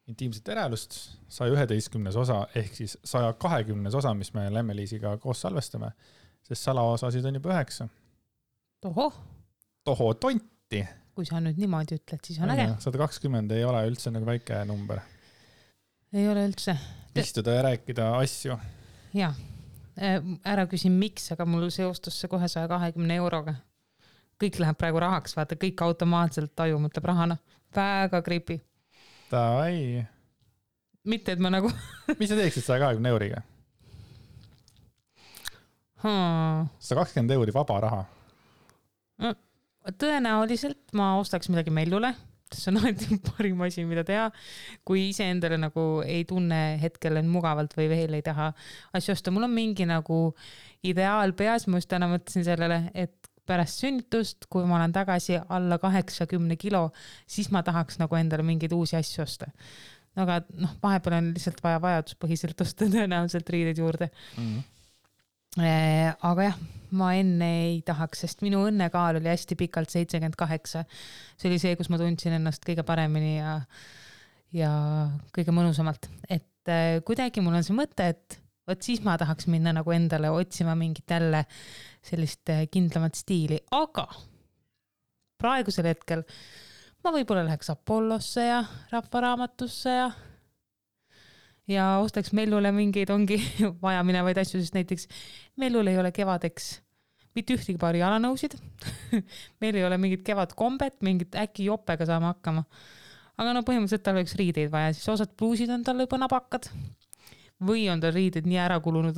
intiimset verelust 111 osa ehk siis 120 osa, mis me Lemmeliisiga koos salvestame, sest salaosasid on juba 9. Toho tonti. Kui sa nüüd niimoodi ütled, siis on äge. 120 ei ole üldse nagu väike number. Ei ole üldse. Istuda ja rääkida asju. Jaa, ära küsin miks, aga mul seostus see kohe 120 euroga. Kõik läheb praegu rahaks, vaata, kõik automaatselt taju mõtleb rahana. Väga creepy. Davai. Mitte, et ma nagu... Mis sa teeksid 120 euriga? 120 euri vaba raha. Tõenäoliselt ma ostaks midagi Mellule. See on alati parim asi, mida teha. Kui ise endale nagu ei tunne hetkel on mugavalt või veel ei taha asju osta. Mul on mingi nagu ideaal peas. Ma just täna mõtlesin sellele, et pärast sünnitust, kui ma olen tagasi alla 80 kilo, siis ma tahaks nagu endale mingeid uusi asju osta. Aga vahepeal on lihtsalt vaja vajaduspõhiselt osta tõenäoliselt riideid juurde. Aga jah, ma enne ei tahaks, sest minu õnnekaal oli hästi pikalt 78. See oli see, kus ma tundsin ennast kõige paremini ja kõige mõnusamalt. Et kuidagi mul on see mõte, et võt siis ma tahaks minna nagu endale otsima mingit jälle sellist kindlamat stiili. Aga praegusel hetkel ma võib-olla läheks Apollosse ja Rahvaraamatusse ja ostaks Mellule mingeid ongi vaja minevaid asju, sest näiteks Mellul ei ole kevadeks mitte ühtegi paari jalanõusid. Meil ei ole mingit kevadkombet, mingit äkki jopega saama hakkama. Aga põhimõtteliselt tal oleks riideid vaja, siis osad pluusid on tal juba nabakad. Või on tal riided nii ära kulunud,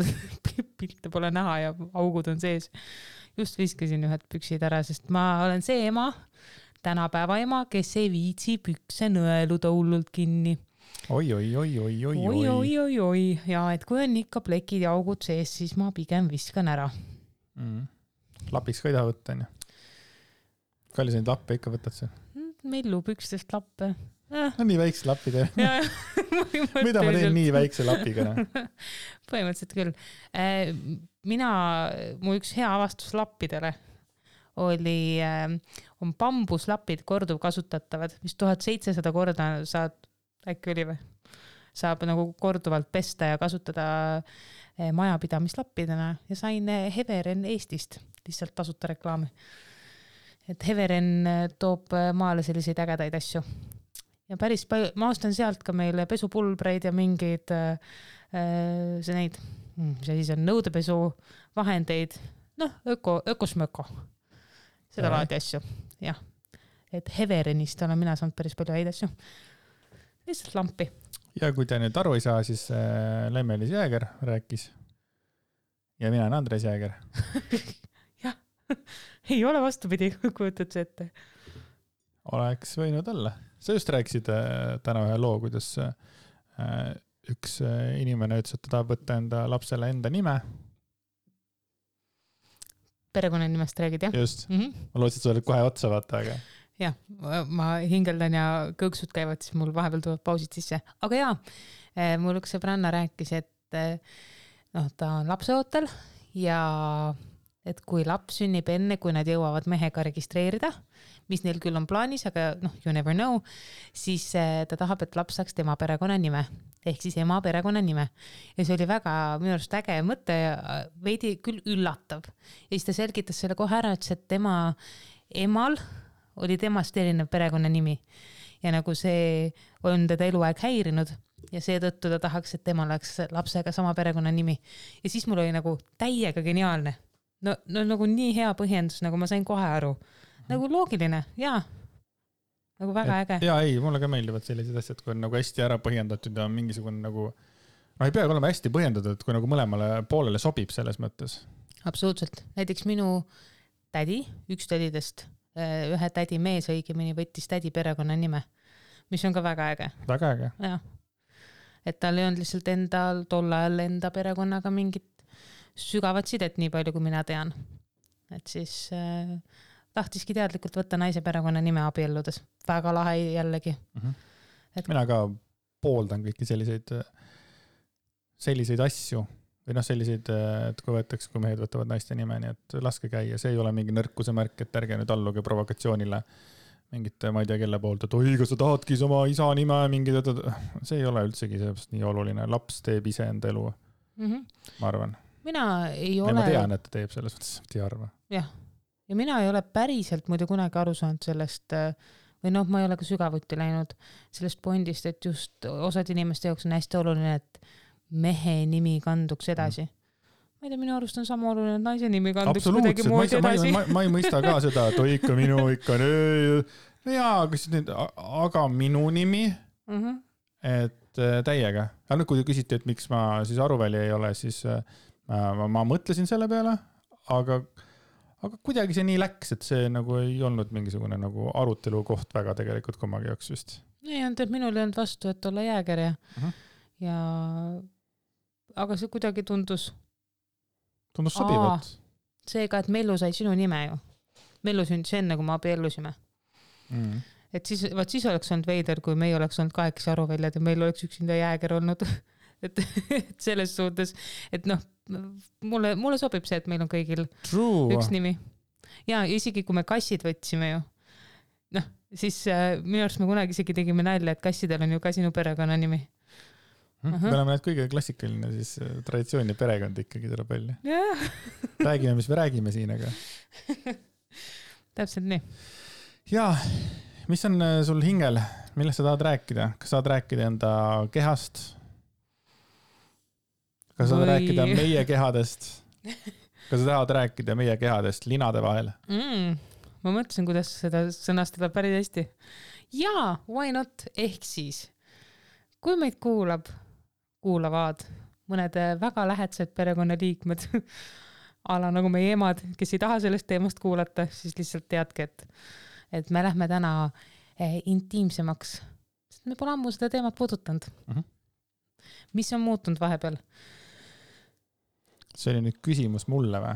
pilte pole näha ja augud on sees. Just viskasin ühed püksid ära, sest ma olen see ema, tänapäeva ema, kes ei viitsi pükse nõeluda hullult kinni. Oi. Ja et kui on ikka plekid ja augud sees, siis ma pigem viskan ära. Lapiks ka ei taha võtta, on ju? Kalli sa neid lappe ikka võtad see? Mellu pükstest lappe. No nii väikse lappi tee. Mida ma teen nii väikse lapiga? Põhimõtteliselt küll. Mu üks hea avastus lappidele on bambuslapid korduvkasutatavad, mis 1700 korda saad, äkki oli või? Saab nagu korduvalt pesta ja kasutada majapidamislappidena ja sain Heveren Eestist lihtsalt tasuta reklaami. Et Heveren toob maale selliseid ägedaid asju. Ja päris palju, ma ostan sealt ka meile pesupulbreid ja mingeid see siis on nõudepesu vahendeid, ökosmöko. Seda laadi asju, jah. Et Heverenist olen mina saanud päris palju häid asju. Lihtsalt lampi. Ja kui te nüüd aru ei saa, siis Lemmelis Jääger rääkis. Ja mina olen Andres Jääger. Jah, ei ole vastupidi, kujutad see ette. Oleks võinud olla. Sa just rääkisid täna ühe loo, kuidas üks inimene ütles, et ta tahab võtta enda lapsele enda nime. Perekonnanimest räägid, jah? Just. Ma lootsin, et sa oled kohe otsa vaata, aga... Jah, ma hingeldan ja kõõksud käivad, siis mul vahepeal tulevad pausid sisse. Aga jaa, mul üks sõbranna rääkis, et ta on lapseootel ja et kui laps sünnib enne, kui nad jõuavad mehega registreerida, mis neil küll on plaanis, aga you never know, siis ta tahab, et laps saaks tema perekonnanime, ehk siis ema perekonnanime. Ja see oli väga minu arust äge mõte ja veidi küll üllatav. Ja siis ta selgitas selle kohe ära, et tema emal oli temast erinev perekonnanimi ja nagu see on teda eluaeg häirinud ja seetõttu ta tahaks, et tema oleks lapsega sama perekonnanimi. Ja siis mul oli nagu täiega geniaalne. No nagu nii hea põhjendus, nagu ma sain kohe aru. Nagu loogiline, jaa. Nagu väga äge. Jaa, ei, mulle ka meeldivad sellised asjad, kui on nagu hästi ära põhjendatud ja mingisugune nagu, ei peagi olema hästi põhjendatud, et kui nagu mõlemale poolele sobib selles mõttes. Absoluutselt. Näiteks minu tädi, üks tädidest, ühe tädi mees õigemini võttis tädi perekonna nime, mis on ka väga äge. Väga äge. Ja. Et tal ei olnud lihtsalt endal tol ajal enda perekonnaga mingit sügavat sidet nii palju, kui mina tean. Et siis tahtiski teadlikult võtta naise perekonna nime abielludes. Väga lahe jällegi. Mina ka pooldan kõiki selliseid asju või selliseid, et kui võetaks, kui mehed võtavad naiste nime, nii et laske käia. See ei ole mingi nõrkuse märk, et ärge nüüd alluge provokatsioonile. mingite, ma ei tea, kelle poolt, et oi, kas sa tahadki oma isa nime mingi, see ei ole üldsegi seepärast nii oluline. Laps teeb ise enda elu, ma arvan. Mina ei ole... Ma tean, et ta teeb selles mõttes, et ei arva. Jah. Ja mina ei ole päriselt muidu kunagi aru saanud sellest, või noh, ma ei ole ka sügavuti läinud sellest pointist, et just osad inimeste jaoks on hästi oluline, et mehe nimi kanduks edasi. Ma ei tea, minu arust on sama oluline, et naise nimi kanduks kuidagi muud edasi. Ma ei mõista ka seda, et oi, ikka minu, ikka jaa, aga minu nimi, et täiega. Ja nüüd, kui te küsite, et miks ma siis Aruväli ei ole, siis ma mõtlesin selle peale, aga kuidagi see nii läks, et see nagu ei olnud mingisugune nagu arutelu koht väga tegelikult kummagi jaoks vist. Ei olnud, et minul ei olnud vastu, et olla jääger ja aga see kuidagi tundus sobivat. Seega, et Mellu sai sinu nime ju. Mellu sündis enne, kui me abiellusime. Et siis oleks olnud veider, kui me ei oleks olnud 8 Aruväljad ja meil oleks üksinda jääger olnud. Et selles suhtes, et noh, mulle sobib see, et meil on kõigil üks nimi. Ja isegi kui me kassid võtsime ju, noh, siis minu arust me kunagi isegi tegime nalja, et kassidel on ju ka sinu perekonna nimi. Me oleme need kõige klassikaline siis traditsiooni perekond ikkagi tuleb välja. Räägime, mis me räägime siin, aga. Täpselt nii. Ja, mis on sul hingel? Millest sa tahad rääkida? Kas saad rääkida enda kehast? Kas sa tahad rääkida meie kehadest? Kas sa tahad rääkida meie kehadest linade vahel? Ma mõtlesin, kuidas seda sõnastada päris hästi. Jaa, why not? Ehk siis, kui meid kuulavad mõned väga lähedased perekonnaliikmed, ala nagu meie emad, kes ei taha sellest teemast kuulata, siis lihtsalt teadke, et me lähme täna intiimsemaks. Sest me pole ammu seda teemat puudutanud. Mis on muutunud vahepeal? See oli nüüd küsimus mulle või?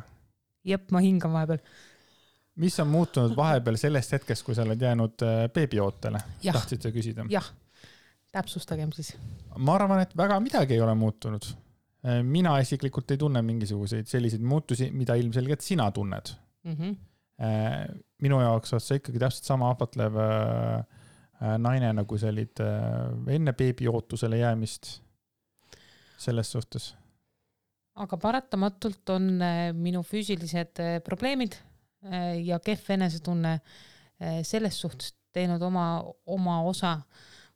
Jep, ma hingan vahepeal. Mis on muutunud vahepeal sellest hetkest, kui sa oled jäänud beebiootele? Tahtsid sa küsida? Jah, täpsustagem siis. Ma arvan, et väga midagi ei ole muutunud. Mina isiklikult ei tunne mingisuguseid selliseid muutusi, mida ilmselgelt sina tunned. Minu jaoks oled sa ikkagi täpselt sama ahvatlev naine, nagu sa olid enne beebiootusele jäämist selles suhtes. Aga paratamatult on minu füüsilised probleemid ja kehv enesetunne selles suhtes teinud oma osa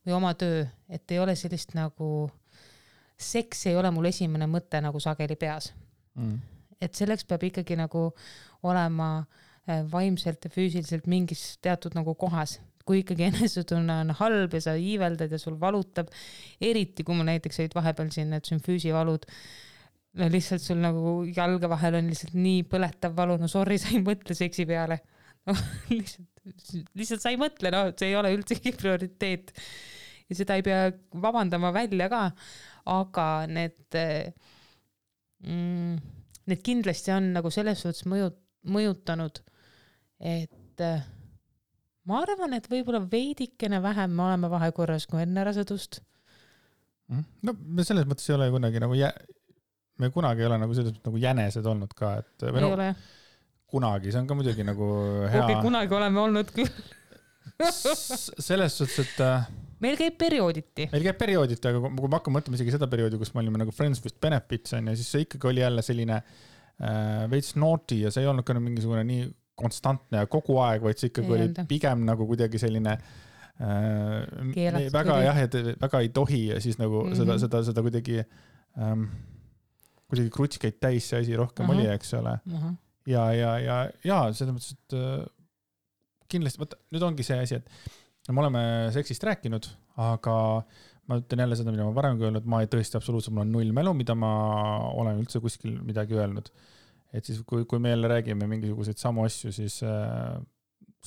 või oma töö, et ei ole sellist nagu seks ei ole mul esimene mõte nagu sageli peas. Et selleks peab ikkagi nagu olema vaimselt ja füüsiliselt mingis teatud nagu kohas. Kui ikkagi enesetunne on halb ja sa iiveldad ja sul valutab, eriti kui mul näiteks olid vahepeal siin need sümfüüsivalud, no lihtsalt sul nagu jalga vahel on lihtsalt nii põletav valu, no sorry, sa ei mõtle seksi peale. No, lihtsalt sa ei mõtle, no see ei ole üldsegi prioriteet. Ja seda ei pea vabandama välja ka, aga need kindlasti on nagu selles suhtes mõjutanud, et ma arvan, et võib-olla veidikene vähem me oleme vahekorras kui enne rasedust. No me selles mõttes ei ole kunagi nagu me kunagi ei ole nagu selles mõttes nagu jänesed olnud ka, et ei ole. Kunagi, see on ka muidugi nagu hea. Okay, kunagi oleme olnud küll. Selles suhtes, et meil käib periooditi, aga kui ma hakkan mõtlema isegi seda perioodi, kus me olime nagu Friends with Benefits on, ja siis see ikkagi oli jälle selline veits naughty ja see ei olnud ka mingisugune nii konstantne ja kogu aeg, vaid see ikkagi oli pigem nagu kuidagi selline väga jah, et väga ei tohi ja siis nagu seda kuidagi krutskaid täis see asi rohkem oli, eks ole. Ja selles mõttes, et kindlasti, nüüd ongi see asi, et me oleme seksist rääkinud, aga ma ütlen jälle seda, mida ma varem öelnud, ma ei tõesti absoluutselt, mul on 0 mälu, mida ma olen üldse kuskil midagi öelnud. Et siis, kui me jälle räägime mingisuguseid samu asju,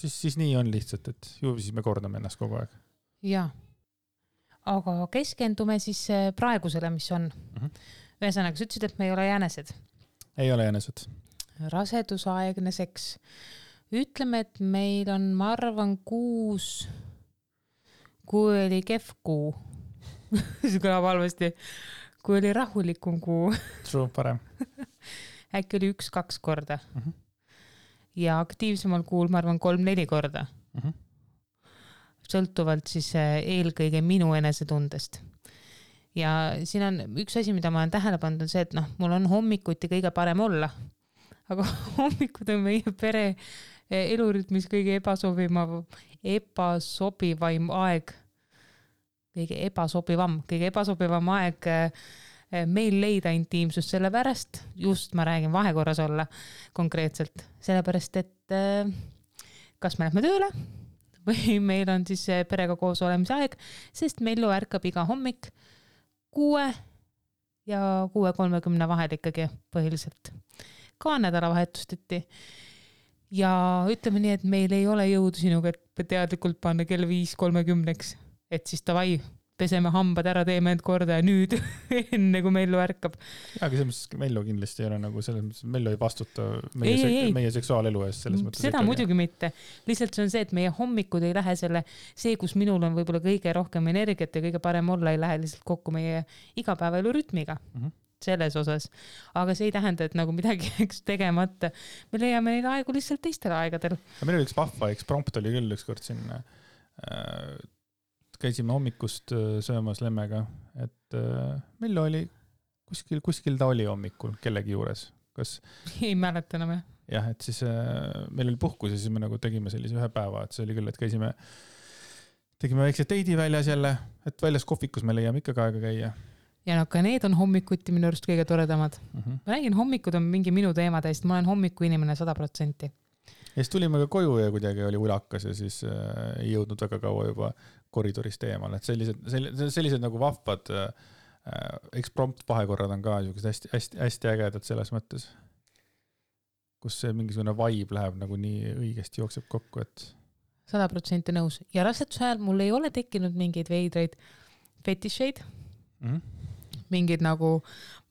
siis nii on lihtsalt, et ju siis me kordame ennast kogu aeg. Ja, aga keskendume siis praegusele, mis on. Ühesõnaga, sa ütlesid, et me ei ole jänesed. Ei ole jänesed. Rasedusaegne seks. Ütleme, et meil on, ma arvan, 6, kui oli kehv kuu. See kõlab halvasti. Kui oli rahulikum kuu. True, parem. Äkki oli 1-2 korda. Ja aktiivsemal kuul, ma arvan, 3-4 korda. sõltuvalt siis eelkõige minu enesetundest. Ja siin on üks asi, mida ma olen tähele pannud, on see, et mul on hommikuti kõige parem olla, aga hommikud on meie pere elurütmis kõige ebasobivaim aeg, kõige ebasobivam aeg meil leida intiimsust, sellepärast, just ma räägin vahekorras olla konkreetselt, sellepärast, et kas me lähme tööle või meil on siis perega koos olemise aeg, sest Mellu ärkab iga hommik 6 ja 6:30 vahel ikkagi põhiliselt. Ka nädalavahetusteti. Ja ütleme nii, et meil ei ole jõudu sinuga, et teadlikult panna kell 5:30, et siis davai, peseme hambad ära, teeme end korda ja nüüd enne kui Mellu ärkab. Ja, aga selles mõttes Mellu kindlasti ei ole nagu selles mõttes, Mellu ei vastuta meie seksuaalelu eest selles mõttes. Seda muidugi mitte. Lihtsalt see on see, et meie hommikud ei lähe see, kus minul on võib-olla kõige rohkem energiat ja kõige parem olla, ei lähe lihtsalt kokku meie igapäevaelu rütmiga. Selles osas. Aga see ei tähenda, et nagu midagi tegemata. Me leiame neid aegu lihtsalt teistel aegadel. Meil oli üks vahva eksprompt oli küll üks kord siin käisime hommikust söömas lemmega, et Mellu oli kuskil ta oli hommikul kellegi juures. Kas ei mäleta enam, jah? Jah, et siis meil oli puhkus ja siis me nagu tegime sellise ühe päeva, et see oli küll, et tegime väikse teidi väljas jälle, et väljas kohvikus me leiame ikka aega käia. Ja ka need on hommikuti minu arust kõige toredamad. Ma räägin, hommikud on mingi minu teema täist, ma olen hommiku inimene 100%. Ja siis tulime ka koju ja kuidagi oli ulakas ja siis ei jõudnud väga kaua juba koridorist eemal, et sellised nagu vahvad eksprompt vahekorrad on ka hästi ägedad selles mõttes, kus see mingisugune vibe läheb nagu nii õigesti jookseb kokku, et 100% nõus. Ja raseduse ajal mul ei ole tekkinud mingeid veidraid fetišeid, mingid nagu,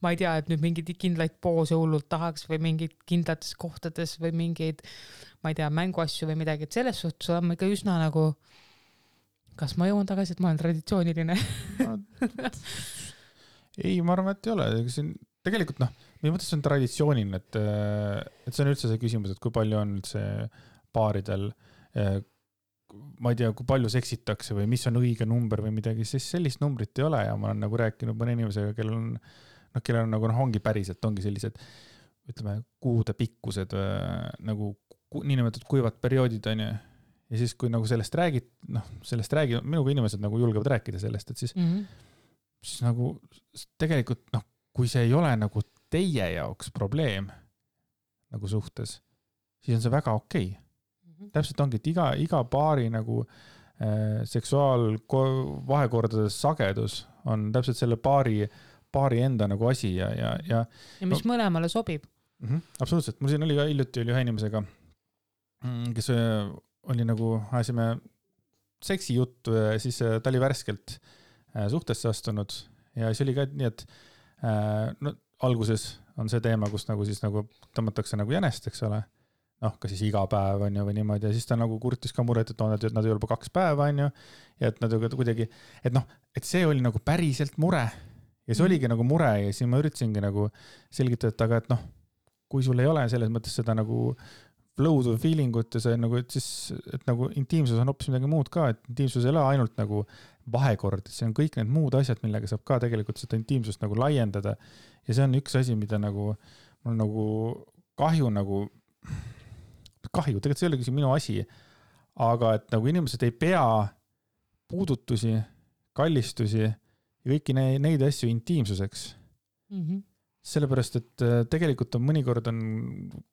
ma ei tea, et nüüd mingid kindlaid poose hullult tahaks või mingid kindlates kohtades või mingeid, ma ei tea, mänguasju või midagi, et selles suhtes olen ma ikka üsna nagu, kas ma jõuan tagasi, et ma olen traditsiooniline? Ei, ma arvan, et ei ole. Tegelikult minu mõttes on traditsiooniline, et see on üldse see küsimus, et kui palju on üldse paaridel, ma ei tea, kui palju seksitakse või mis on õige number või midagi, siis sellist numbrit ei ole ja ma olen nagu rääkinud mõne inimesega, kellel on nagu ongi päriselt, ongi sellised, ütleme, kuude pikkused nagu niinimetatud kuivad perioodid on ju. Ja siis, kui nagu sellest räägid, minuga inimesed nagu julgevad rääkida sellest, et siis, siis nagu tegelikult, kui see ei ole nagu teie jaoks probleem nagu suhtes, siis on see väga okei. Täpselt ongi, et iga paari nagu seksuaalvahekordades sagedus on täpselt selle paari enda nagu asi ja mis mõlemale sobib. Absoluutselt. Mul siin oli ka hiljuti ühe inimesega, kes oli nagu, ajasime seksi juttu ja siis ta oli värskelt suhtesse astunud ja siis oli ka nii, et alguses on see teema, kus nagu siis nagu tõmmatakse nagu jänest, eks ole. Ka siis iga päev on ju või niimoodi ja siis ta nagu kurtis ka muret, et nad ei ole juba 2 päeva on ju ja et nad kuidagi, et see oli nagu päriselt mure ja see oligi nagu mure ja siis ma üritasingi nagu selgitada, aga et kui sul ei ole selles mõttes seda nagu flow'd või feelingut ja see nagu, et siis, et nagu intiimsus on hoopis midagi muud ka, et intiimsus ei ole ainult nagu vahekord, see on kõik need muud asjad, millega saab ka tegelikult seda intiimsust nagu laiendada ja see on üks asi, mida nagu mul nagu kahju, tegelikult see ei ole küll minu asi, aga et nagu inimesed ei pea puudutusi, kallistusi ja kõiki neid asju intiimsuseks. Sellepärast, et tegelikult on mõnikord on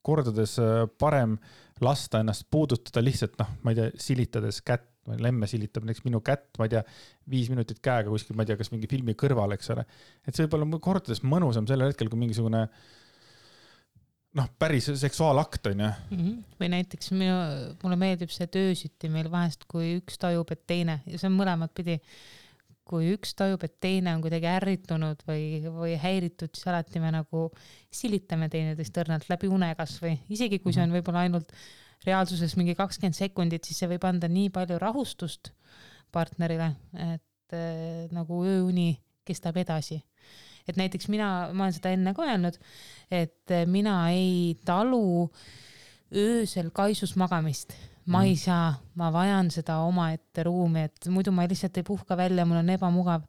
kordades parem lasta ennast puudutada lihtsalt, ma ei tea, silitades kätt, lemme silitab näiteks minu kätt, ma ei tea, 5 minutit käega kuskil, ma ei tea, kas mingi filmi kõrval, eks ole. Et see võib olla kordades mõnusam sellel hetkel, kui mingisugune päris seksuaalakt on ju. Või näiteks mulle meeldib see töösütti meil vahest, kui üks tajub, et teine, ja see on mõlemad pidi, kui üks tajub, et teine on kuidagi ärritunud või häiritud, siis alati me nagu silitame teineteist õrnalt läbi unekas või isegi kui see on võib-olla ainult reaalsuses mingi 20 sekundit, siis see võib anda nii palju rahustust partnerile, et nagu ööuni kestab edasi. Et näiteks ma olen seda enne ka öelnud, et mina ei talu öösel kaisus magamist. ma ei saa, ma vajan seda omaette ruumi, et muidu ma lihtsalt ei puhka välja, mul on ebamugav.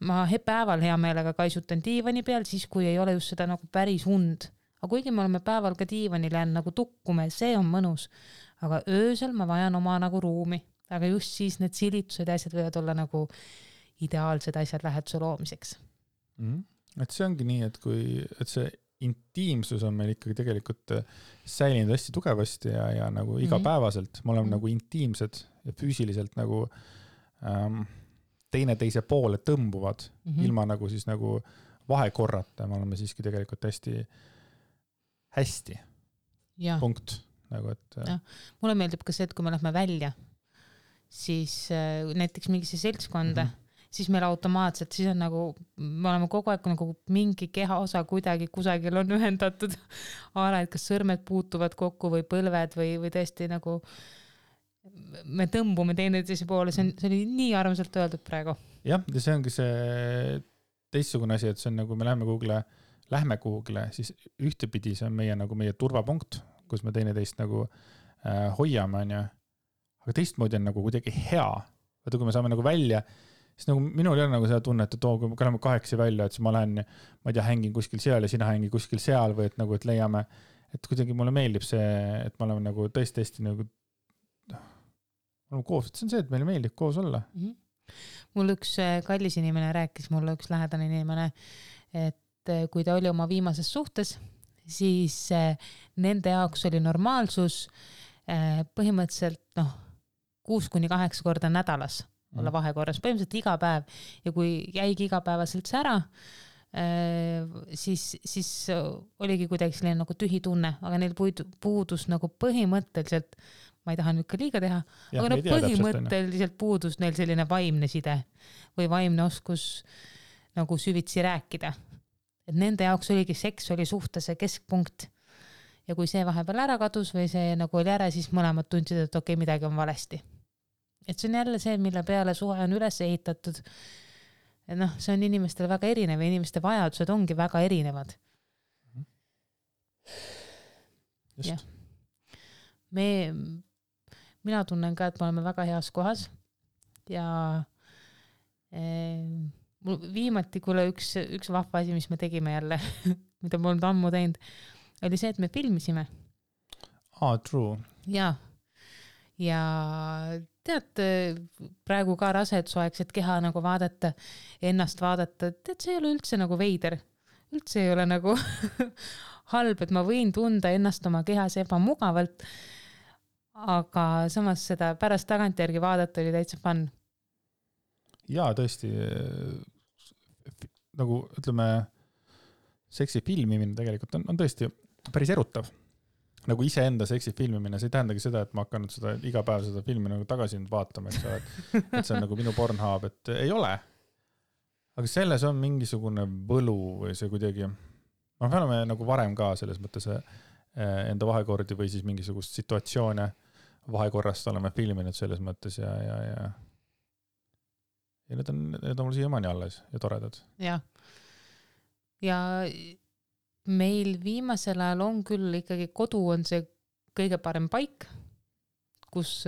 Ma päeval hea meelega kaisutan diivani peal, siis kui ei ole just seda nagu päris und. Aga kuigi me oleme päeval ka diivanil jäänud nagu tukkume, see on mõnus. Aga öösel ma vajan oma nagu ruumi. Aga just siis need silitused ja asjad võivad olla nagu ideaalsed asjad läheduse loomiseks. Et see ongi nii, et see intiimsus on meil ikkagi tegelikult säilinud hästi tugevasti ja nagu igapäevaselt. Me oleme nagu intiimsed ja füüsiliselt nagu teine poole tõmbuvad ilma nagu siis nagu vahekorrata. Me oleme siiski tegelikult hästi. Ja. Punkt. Nagu, et... Ja. Mulle meeldib ka see, et kui me lähme välja, siis näiteks mingisse seltskonda, siis meil automaatselt, siis on nagu, me oleme kogu aeg nagu mingi kehaosa kuidagi kusagil on ühendatud ala, et kas sõrmed puutuvad kokku või põlved või tõesti nagu me tõmbume teineteise poole, see oli nii armsalt öeldud praegu. Jah, ja see ongi see teistsugune asi, et see on nagu me lähme kuhugile, siis ühtepidi see on meie turvapunkt, kus me teineteist nagu hoiame, aga teistmoodi on nagu kuidagi hea. Vaata, kui me saame nagu välja, siis nagu minul ei ole nagu seda tunnet, et kui me oleme 8 välja, et siis ma lähen, ma ei tea, hängin kuskil seal ja sina hängi kuskil seal või et nagu, et leiame, et kuidagi mulle meeldib see, et me oleme nagu tõesti nagu koos, et see on see, et meile meeldib koos olla. Mul üks kallis inimene rääkis, mulle üks lähedane inimene, et kui ta oli oma viimases suhtes, siis nende jaoks oli normaalsus põhimõtteliselt 6-8 korda nädalas olla vahekorras, põhimõtteliselt iga päev ja kui jäigi igapäevaselt see ära, siis oligi kuidagi selline nagu tühi tunne, aga neil puudus nagu põhimõtteliselt, ma ei taha nüüd ka liiga teha, aga no põhimõtteliselt puudus neil selline vaimne side või vaimne oskus nagu süvitsi rääkida. Et nende jaoks oligi seks oli suhtese keskpunkt ja kui see vahepeal ära kadus või see nagu oli ära, siis mõlemad tundsid, et okei, midagi on valesti. Et see on jälle see, mille peale suhe on üles ehitatud. Et see on inimestele väga erinev ja inimeste vajadused ongi väga erinevad. Just. Mina tunnen ka, et me oleme väga heas kohas ja viimati, kuule üks vahva asi, mis me tegime jälle, mida me oleme ammu teinud, oli see, et me filmisime. True. Ja tead, praegu ka rasedsuaegset keha nagu vaadata, ennast vaadata, tead, see ei ole üldse nagu veider. Üldse ei ole nagu halb, et ma võin tunda ennast oma kehas ebamugavalt, aga samas seda pärast tagantjärgi vaadata oli täitsa fun. Ja tõesti, nagu ütleme, seksi filmimine tegelikult on tõesti päris erutav. Nagu iseenda seksi filmimine, see ei tähendagi seda, et ma hakanud seda iga päev seda filmi nagu tagasi vaatama, et see on nagu minu Pornhub, et ei ole. Aga selles on mingisugune võlu või see kuidagi, me oleme nagu varem ka selles mõttes enda vahekordi või siis mingisugust situatsioone vahekorrast oleme filminud selles mõttes ja need on mul siiamaani alles ja toredad. Ja meil viimasel ajal on küll ikkagi kodu on see kõige parem paik, kus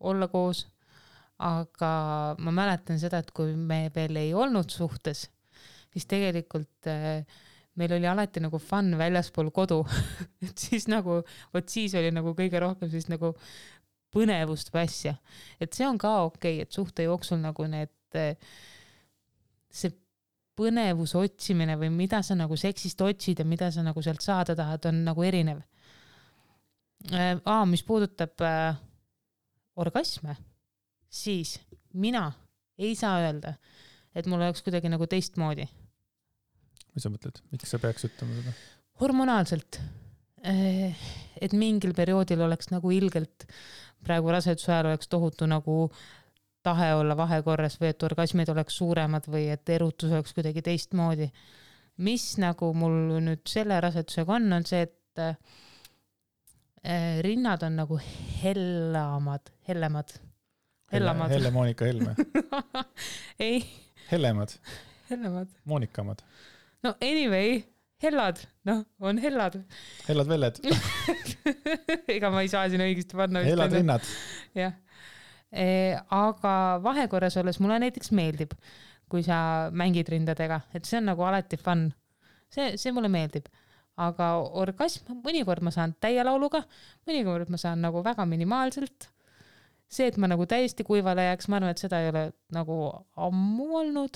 olla koos, aga ma mäletan seda, et kui me veel ei olnud suhtes, siis tegelikult meil oli alati nagu fun väljaspool kodu, et siis nagu, siis oli nagu kõige rohkem siis nagu põnevust või asja, et see on ka okei, et suhte jooksul nagu see põnevus otsimine või mida sa nagu seksist otsid ja mida sa nagu sealt saada tahad, on nagu erinev. Mis puudutab orgasme, siis mina ei saa öelda, et mul oleks kuidagi nagu teistmoodi. Mis sa mõtled? Miks sa peaks ütlema seda? Hormonaalselt. Et mingil perioodil oleks nagu ilgelt, praegu raseduse ajal oleks tohutu nagu tahe olla vahekorras või et orgasmid oleks suuremad või et erutus oleks kuidagi teistmoodi. Mis nagu mul nüüd selle rasedusega on see, et rinnad on nagu hellemad. Helle-Moonika Helme. Ei. Hellemad. Hellemad. Moonikamad. No anyway, hellad, noh, on hellad. Hellad velled. Ega ma ei saa sinna õigesti panna. Hellad rinnad. Jah. Aga vahekorras olles mulle näiteks meeldib, kui sa mängid rindadega, et see on nagu alati fun. See mulle meeldib. Aga orgasm, mõnikord ma saan täie lauluga, mõnikord ma saan nagu väga minimaalselt. See, et ma nagu täiesti kuivale jääks, ma arvan, et seda ei ole nagu ammu olnud.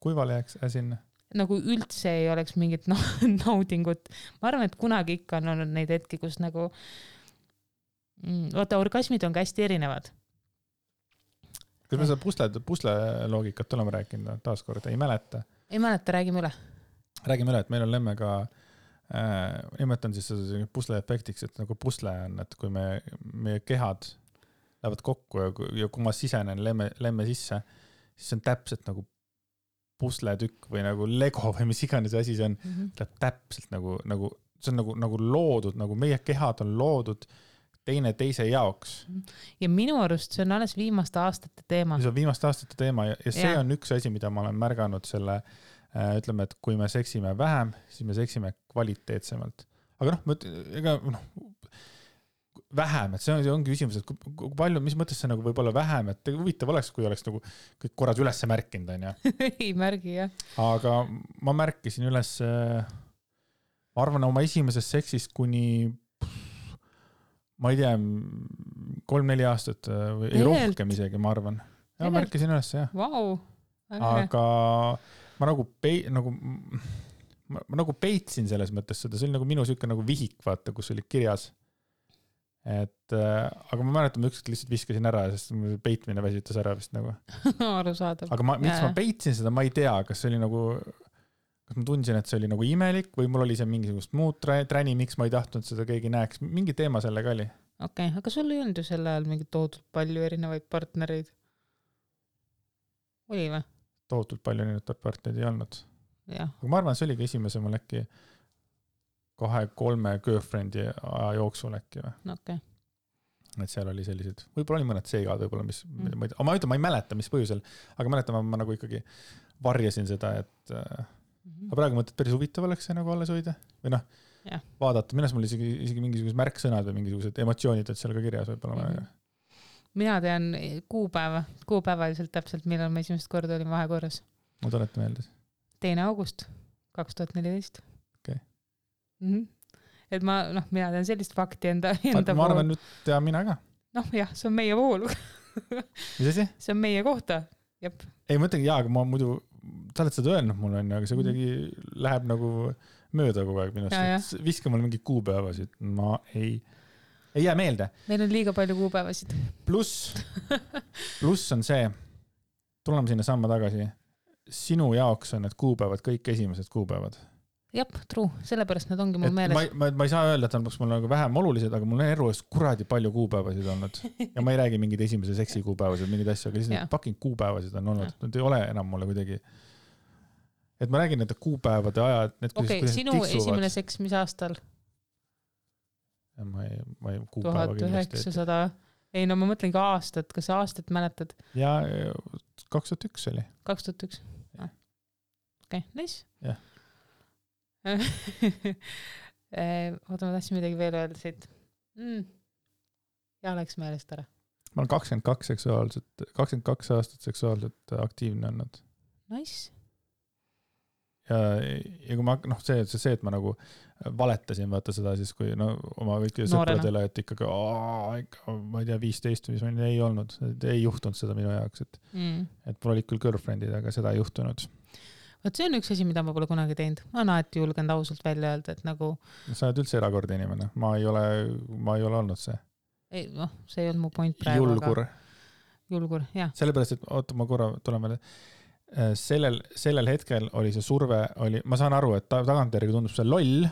Kuivale jääks sinna? Nagu üldse ei oleks mingit naudingut. Ma arvan, et kunagi ikka on olnud neid hetki, kus nagu vaata, orgasmid on ka hästi erinevad. Kas me seda pusle loogikat oleme rääkinud taaskord? Ei mäleta? Ei mäleta, räägime üle. Räägime üle, et meil on Lemmega, nimetan siis seda pusle efektiks, et nagu pusle on, et kui meie kehad lähevad kokku ja kui ma sisenen lemme sisse, siis see on täpselt nagu pusletükk või nagu Lego või mis iganes asi see on, läheb täpselt nagu see on nagu loodud, nagu meie kehad on loodud teise jaoks. Ja minu arust see on alles viimaste aastate teema. See on viimaste aastate teema ja see on üks asi, mida ma olen märganud selle, ütleme, et kui me seksime vähem, siis me seksime kvaliteetsemalt. Aga vähem, et see ongi küsimus, et kui palju, mis mõttes see nagu võib-olla vähem, et huvitav oleks, kui oleks nagu kõik korras üles märkinud, on ja? Ei märgi, jah. Aga ma märkisin üles, ma arvan, oma esimeses seksist kuni ma ei tea, 3-4 aastat või ei rohkem isegi, ma arvan. Ja ma märkisin üles, jah. Vau. Aga ma nagu peitsin selles mõttes seda, see oli nagu minu süüke nagu vihik, vaata, kus oli kirjas. Aga ma mäletan, ma ükskord lihtsalt viskasin ära, sest peitmine väsitas ära vist nagu. Arusaadav. Aga miks ma peitsin seda, ma ei tea, kas see oli nagu... Kas ma tundsin, et see oli nagu imelik või mul oli see mingisugust muud träni, miks ma ei tahtnud seda keegi näeks. Mingi teema sellega oli. Okei, aga sul ei olnud ju selle ajal mingi toodud palju erinevaid partnereid? Oli või? Toodud palju erinevaid partnereid ei olnud. Ja. Aga ma arvan, see oligi esimese mul äkki 2-3 girlfriend'i aja jooksul äkki või. Okei. Et seal oli sellised, võib-olla oli mõned seigad, võib-olla mis, ma ei mäleta, mis põhjusel, aga mäletan, ma nagu ikkagi varjasin seda, et aga praegu mõtled, päris huvitav oleks see nagu alles hoida või vaadata, minnes mul isegi mingisugused märksõnad või mingisugused emotsioonid, et seal ka kirjas võib-olla. Mina tean kuupäevaliselt täpselt, millal ma esimest korda olin vahekorras. Ma tuleta meeldes. 2. august 2014. Okay. Et mina tean sellist fakti enda ma arvan, nüüd tean mina ka. Jah, see on meie voolu. Mis asi? See on meie kohta. Jep. Ei mõtlegi, aga ma muidu sa oled seda öelnud mulle, aga see kuidagi läheb nagu mööda kogu aeg minust. Viska mulle mingi kuupäevasid. Ma ei jää meelde. Meil on liiga palju kuupäevasid. Pluss on see, tuleme sinna samma tagasi, sinu jaoks on need kuupäevad kõik esimesed kuupäevad. Jep, true. Sellepärast need ongi mul meeles. Ma ei saa öelda, et on mul nagu vähem olulised, aga mul on erues kuradi palju kuupäevasid olnud. Ja ma ei räägi mingid esimese seksi kuupäevasid, mingid asju, aga lihtsalt fucking kuupäevasid on olnud. Need ei ole enam mulle kuidagi. Et ma räägin nende kuupäevade ajad. Okei, sinu esimene seks mis aastal? Ma ei kuupäeva 1900. Ei, ma mõtlen ka aastat. Kas sa aastat mäletad? Ja 2001 oli. 2001. Okei, nice. Jah. Oota, ma tahtsin midagi veel öelda siit. Ja läks meelest ära. Ma olen 22 aastat seksuaalselt aktiivne olnud. Nice. Ja kui ma, see, et ma nagu valetasin, vaata seda siis, kui oma kõiki sõpradele, et ikkagi, ma ei tea, 15 või mis ei olnud, ei juhtunud seda minu jaoks, et mul olid küll girlfriendid, aga seda ei juhtunud. Võt see on üks asi, mida ma pole kunagi teinud. Ma olen alati julgenud ausalt välja öelda, et nagu... Sa oled üldse erakordne inimene. Ma ei ole olnud see. Ei, see ei olnud mu point praegu. Julgur, jah. Sellepärast, et oota, ma korra tulen veel. Sellel hetkel oli see surve, ma saan aru, et tagantjärgi tundub see loll,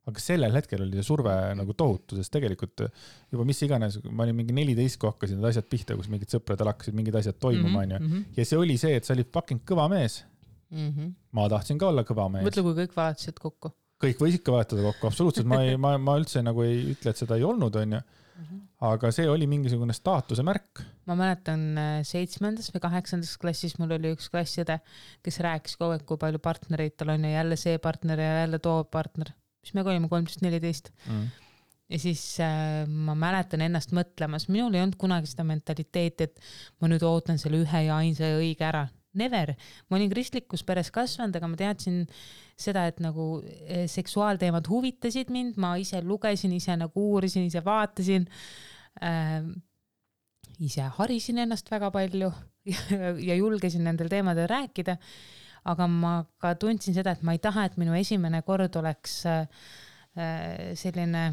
aga sellel hetkel oli see surve nagu tohutu, sest tegelikult juba mis iganes, ma olin mingi 14, kui hakkasin need asjad pihta, kus mingid sõpradel hakkasid mingid asjad toimuma, ja see oli see, et sa olid fucking kõva mees. Ma tahtsin ka olla kõva mees. Mõtle, kui kõik valetasid kokku. kõik võis ikka vahetada kokku, absoluutselt, ma üldse nagu ei ütle, et seda ei olnud, on ju. Aga see oli mingisugune staatuse märk. Ma mäletan 7. või 8. klassis mul oli üks klassiõde, kes rääkis kogu aeg, kui palju partnereid tal on ja jälle see partner ja jälle too partner, mis me olime 13-14. Ja siis ma mäletan ennast mõtlemas, minul ei olnud kunagi seda mentaliteeti, et ma nüüd ootan selle ühe ja ainsa ja õige ära. Never. Ma olin kristlikus peres kasvanud, aga ma teadsin seda, et nagu seksuaalteemad huvitasid mind, ma ise lugesin, ise nagu uurisin, ise vaatasin, ise harisin ennast väga palju ja julgesin nendel teemadel rääkida, aga ma ka tundsin seda, et ma ei taha, et minu esimene kord oleks selline,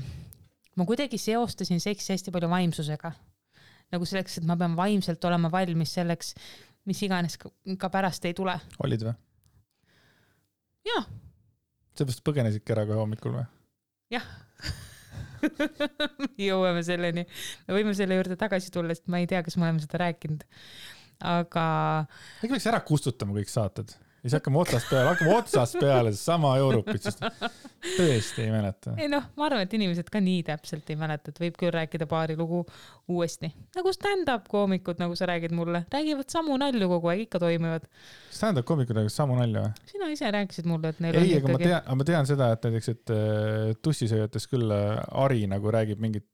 ma kuidagi seostasin seksi hästi palju vaimsusega. Nagu selleks, et ma pean vaimselt olema valmis selleks, mis iganes ka pärast ei tule. Olid või? Jah. Seepärast põgenesidki ära kohe hommikul või? Jah. Jõuame selleni. Me võime selle juurde tagasi tulla, sest ma ei tea, kas me oleme seda rääkinud. Aga... Äkki peaks ära kustutama kõik saated? Ja siis hakkame otsast peale sama Europit, sest tõesti ei mäleta. Ei noh, ma arvan, et inimesed ka nii täpselt ei mäleta, et võib küll rääkida paari lugu uuesti. Nagu stand-up koomikud, nagu sa räägid mulle, räägivad samu nalju kogu aeg, ikka toimivad. Stand-up koomikud räägivad samu nalju või? Sina ise rääkisid mulle, et neil ei, on ikkagi... ma tean seda, et näiteks, et tussisööjates küll Ari nagu räägib mingit...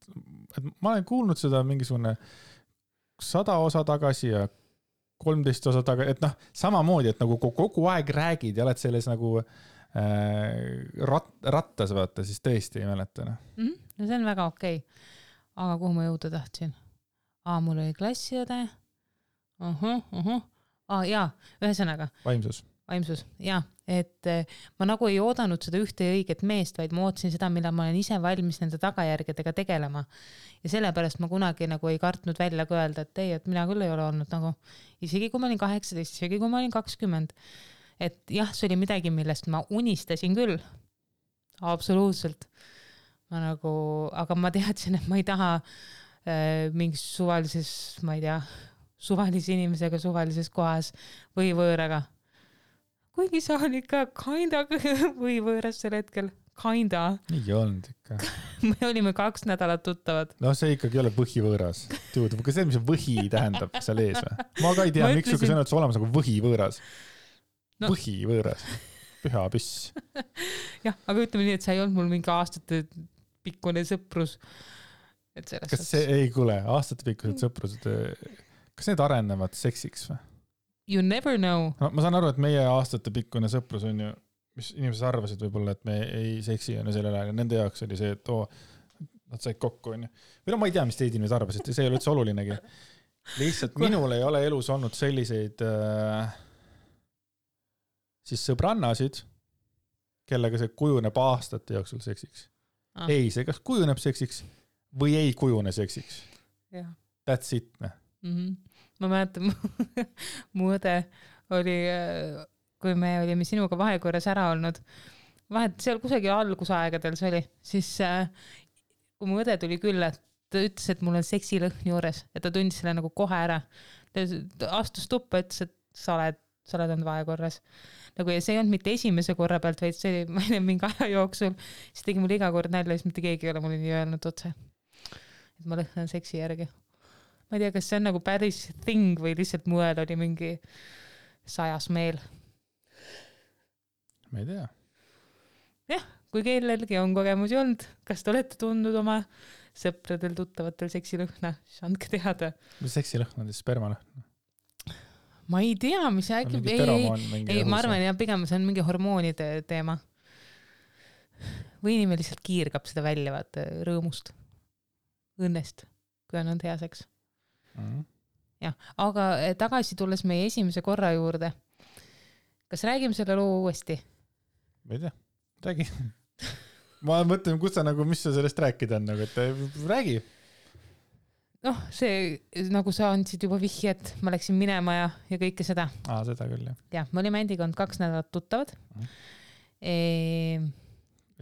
Et ma olen kuulnud seda mingisugune 100 osa tagasi ja 13 osa taga, et noh, samamoodi, et nagu kogu aeg räägid ja oled selles nagu rattas vaata, siis tõesti ei mäleta. No see on väga okei. Aga kuhu ma jõuda tahtsin? Mul oli klassiõde. Jaa, ühesõnaga. Vaimsus, jaa. Et ma nagu ei oodanud seda ühte ja õiget meest, vaid ma ootasin seda, millal ma olen ise valmis nende tagajärgedega tegelema. Ja sellepärast ma kunagi nagu ei kartnud välja ka öelda, et ei, et mina küll ei ole olnud nagu, isegi kui ma olin 18, isegi kui ma olin 20. Et jah, see oli midagi, millest ma unistasin küll. Absoluutselt. Ma nagu, aga ma teadsin, et ma ei taha mingis suvalises, ma ei tea, suvalise inimesega suvalises kohas või võõraga. Kuigi sa oli ikka kinda või võõras sel hetkel. Kinda. Ei olnud ikka. Me olime 2 nädalat tuttavad. No see ikkagi ei ole võhivõõras. Kas see, mis võhi tähendab seal ees või? Ma ka ei tea, miks sul sõnad olemas nagu võhivõõras. No. Võhivõõras. Püha püss. Jah, aga ütleme nii, et see ei olnud mul mingi aastate pikkune sõprus. Et kas see ei kuule, aastate pikkused sõprused, kas need arenevad seksiks või? You never know. No, ma saan aru, et meie aastate pikkune sõprus on ju, mis inimesed arvasid võib-olla, et me ei seksi on ju sellel ajal ja nende jaoks oli see, et nad said kokku on ju. Või no ma ei tea, mis teid inimesed arvasid, see ei ole üldse olulinegi. Lihtsalt minul ei ole elus olnud selliseid siis sõbrannasid, kellega see kujuneb aastate jooksul seksiks. Ei, see kas kujuneb seksiks või ei kujune seksiks. Ja. That's it. Ma mäletan, mu õde oli, kui me olime sinuga vahekorras ära olnud, seal kusagil algusaegadel see oli, siis kui mu õde tuli külla, ta ütles, et mul on seksilõhn juures ja ta tundis selle nagu kohe ära. Ta astus tuppa, ütles, et sa oled olnud vahekorras. Nagu, ja see ei olnud mitte esimese korra pealt, vaid see oli, ma ei tea, mingi aja jooksul, siis tegi mul iga kord nälja, siis mitte keegi ei ole mulle nii öelnud otse, et ma lõhnan seksi järgi. Ma ei tea, kas see on nagu päris thing või lihtsalt muel oli mingi 100 meel. Ma ei tea. Jah, kui kellelgi on kogemusi olnud, kas te olete tundnud oma sõpradel tuttavatel seksilõhna, siis andke teada. Mis seksilõhn on siis spermalõhn? Ma ei tea, mis äkki... Ei, ma arvan, ja pigem see on mingi hormoonide teema. Või inimene lihtsalt kiirgab seda välja vaata rõõmust, õnnest, kui on hea seks. Ja, aga tagasi tulles meie esimese korra juurde. Kas räägime selle loo uuesti? Ma ei tea, räägi. Ma mõtlen, kus sa nagu, mis sa sellest rääkida on, nagu, et räägi. Noh, see, nagu sa andsid juba vihje, et ma läksin minema ja kõike seda. Seda küll, jah. Ja, me olime endiga olnud 2 nädalat tuttavad.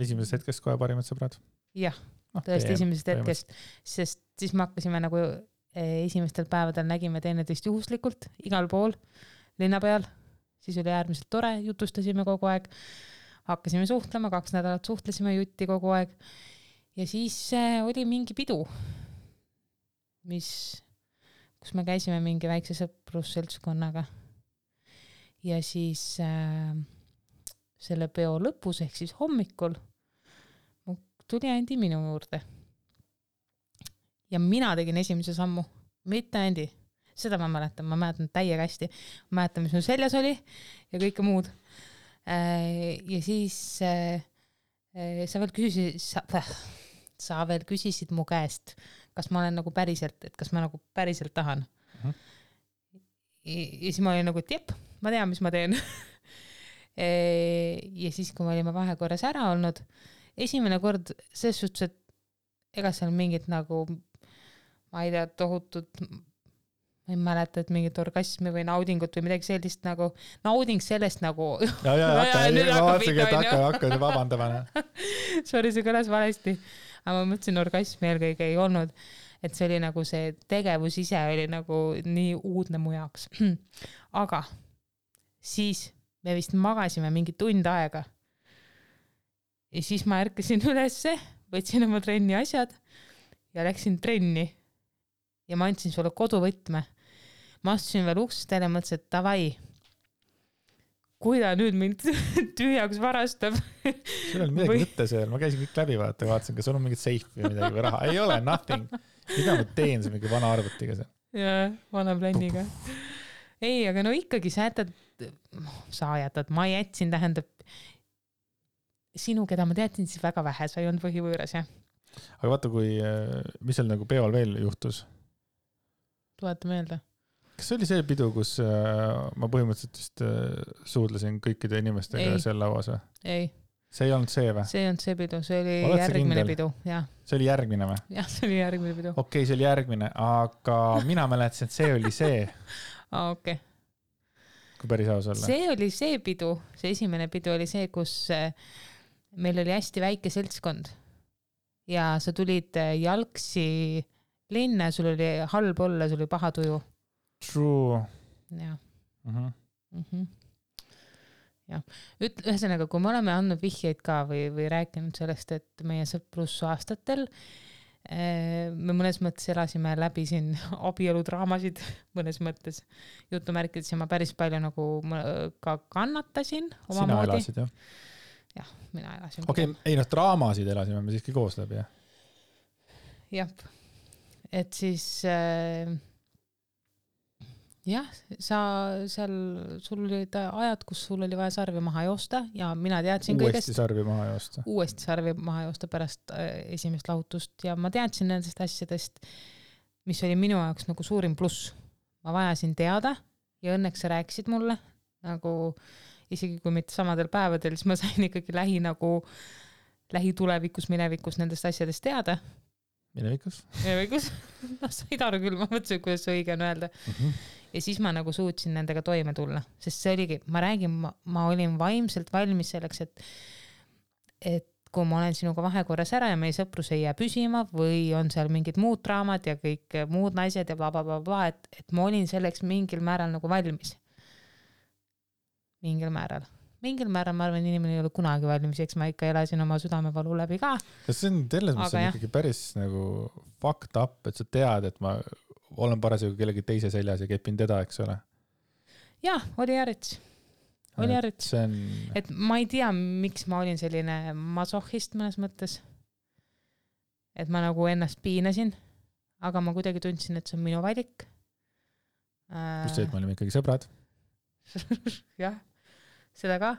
Esimesest hetkest kohe parimad sõbrad? Jah, tõesti esimesest hetkest, sest siis me hakkasime nagu esimestel päevadel nägime teineteist juhuslikult igal pool linna peal, siis oli äärmiselt tore, jutustasime kogu aeg, hakkasime suhtlema, 2 nädalat suhtlesime jutti kogu aeg ja siis oli mingi pidu, kus me käisime mingi väikse sõprusseltskonnaga ja siis selle peo lõpus ehk siis hommikul tuli Andi minu juurde ja mina tegin esimese sammu, mitte Andi. Seda ma mäletan täiega hästi. Ma mäletan, mis mu seljas oli ja kõike muud. Ja siis sa veel küsisid mu käest, kas ma olen nagu päriselt, et kas ma nagu päriselt tahan. Ja siis ma olin nagu, et jep, ma tean, mis ma teen. Ja siis, kui me olime vahekorras ära olnud, esimene kord selles suhtes, et ega seal mingit nagu, ma ei tea, tohutut ma ei mäleta, et mingit orgasmi või naudingut või midagi sellist nagu, nauding sellest nagu ja, hakka vabandama. Sorry, see kõlas valesti. Aga ma mõtlesin, orgasmi eelkõige ei olnud, et see oli nagu see tegevus ise oli nagu nii uudne mu jaoks. Aga siis me vist magasime mingi tund aega. Ja siis ma ärkasin ülesse, võtsin oma trenni asjad ja läksin trenni. Ja ma andsin sulle koduvõtme. Ma astusin veel uksest ja mõtlesin, et davai, kui ta nüüd mind tühjaks varastab. Sul oli midagi mõtte seal, ma käisin kõik läbi vaatasin, kas sul on mingit seifi või midagi või raha. Ei ole, nothing. Mida ma teen see mingi vana arvutiga seal? Jaa, vana plänniga. Ei, aga no ikkagi sa jätad, ma jätsin, tähendab sinu, keda ma teadsin, siis väga vähe, sa ei olnud põhivõõras, jah. Aga vaata, mis seal nagu peol veel juhtus? Tuleta meelde. Kas see oli see pidu, kus ma põhimõtteliselt vist suudlesin kõikide inimestega seal lauas või? Ei. See ei olnud see või? See ei olnud see pidu, see oli järgmine pidu. Jah. See oli järgmine või? Jah, see oli järgmine pidu. Okei, see oli järgmine, aga mina mäletasin, et see oli see. Okei. Kui päris aus olla. See oli see pidu, see esimene pidu oli see, kus meil oli hästi väike seltskond ja sa tulid jalgsi linna, sul oli halb olla, sul oli paha tuju. True. Jah. Ja. Ühesõnaga, kui me oleme andnud vihjeid ka või rääkinud sellest, et meie sõprusaastatel me mõnes mõttes elasime läbi siin abieludraamasid, mõnes mõttes jutumärkides ja ma päris palju nagu ka kannatasin oma Sina moodi. Elasid, jah? Jah, mina elasin. Okei, ei draamasid elasime me siiski koos läbi, jah? Jah, et siis jah, sul olid ajad, kus sul oli vaja sarvi maha joosta ja mina teadsin uuesti sarvi maha joosta. Uuesti sarvi maha joosta pärast esimest lahutust ja ma teadsin nendest asjadest, mis oli minu jaoks nagu suurim pluss. Ma vajasin teada ja õnneks sa rääkisid mulle, nagu isegi kui mitte samadel päevadel, siis ma sain ikkagi lähitulevikus, minevikus nendest asjadest teada. Minevikus? No said aru küll, ma mõtlesin, kuidas see õige on öelda. Ja siis ma nagu suutsin nendega toime tulla, sest see oligi, ma olin vaimselt valmis selleks, et kui ma olen sinuga vahekorras ära ja meie sõprus ei jää püsima või on seal mingid muud draamad ja kõik muud naised ja blablabla, et ma olin selleks mingil määral nagu valmis. Mingil määral, ma arvan, inimene ei ole kunagi valmis, eks ma ikka elasin oma südamevalu läbi ka. Kas see on selles mõttes ikkagi päris nagu fucked up, et sa tead, et ma olen parasjagu kellegi teise seljas ja kepin teda, eks ole? Jah, oli järjets. Et ma ei tea, miks ma olin selline masohhist mõnes mõttes. Et ma nagu ennast piinasin, aga ma kuidagi tundsin, et see on minu valik. Just see, et me olime ikkagi sõbrad. Jah, seda ka.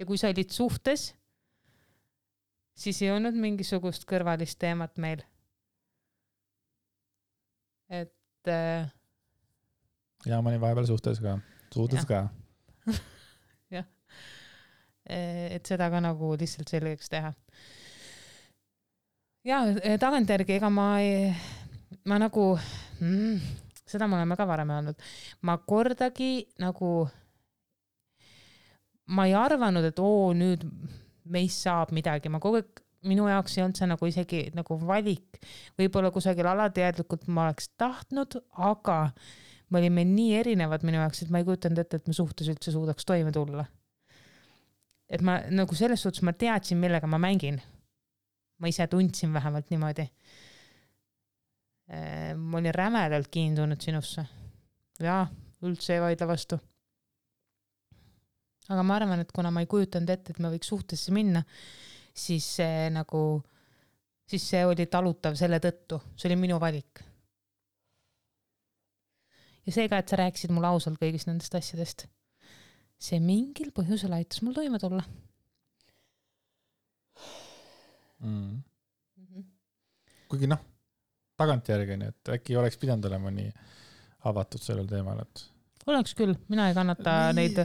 Ja kui sa olid suhtes, siis ei olnud mingisugust kõrvalist teemat meil. Et ja ma olin vahepeal suhtes ka. Jah. Et seda ka nagu lihtsalt selgeks teha. Ja tagantjärgi, ega ma nagu seda me oleme ka varem öelnud. Ma kordagi nagu ma ei arvanud, et nüüd meist saab midagi. Ma kogu aeg minu jaoks ei olnud see nagu isegi nagu valik. Võib-olla kusagil alateadlikult ma oleks tahtnud, aga me olime nii erinevad minu jaoks, et ma ei kujutanud ette, et me suhtes üldse suudaks toime tulla. et ma nagu selles suhtes ma teadsin, millega ma mängin. Ma ise tundsin vähemalt niimoodi. Ma olin rämedalt kiindunud sinusse. Ja, üldse ei vaidle vastu. Aga ma arvan, et kuna ma ei kujutanud ette, et ma võiks suhtesse minna, siis see oli talutav selle tõttu. See oli minu valik. Ja see ka, et sa rääkisid mulle ausalt kõigist nendest asjadest. See mingil põhjusel aitas mul toime tulla. Kuigi tagantjärgi, et äkki oleks pidanud olema nii avatud sellel teemal, et oleks küll, mina ei kannata neid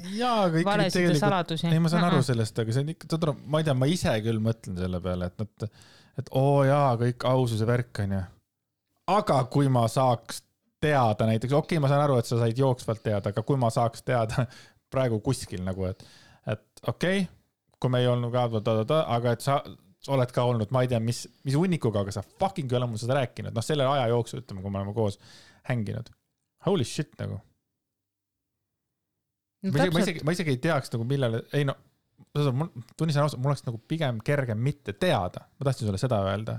valesid ja saladusi. Ei, ma saan aru sellest, aga see on ikka, ma ei tea, ma ise küll mõtlen selle peale, et kõik aususe värk on ju. Aga kui ma saaks teada näiteks, okei, ma saan aru, et sa said jooksvalt teada, aga kui ma saaks teada praegu kuskil nagu, et okei, kui me ei olnud aga et sa oled ka olnud, ma ei tea, mis unnikuga, aga sa fucking ei ole mul seda rääkinud. Selle aja jooksul, ütleme, kui me oleme koos hänginud. Holy shit nagu. Ma isegi ei teaks nagu millele, tunnistan ausalt, mul oleks nagu pigem kergem mitte teada. Ma tahtsin sulle seda öelda.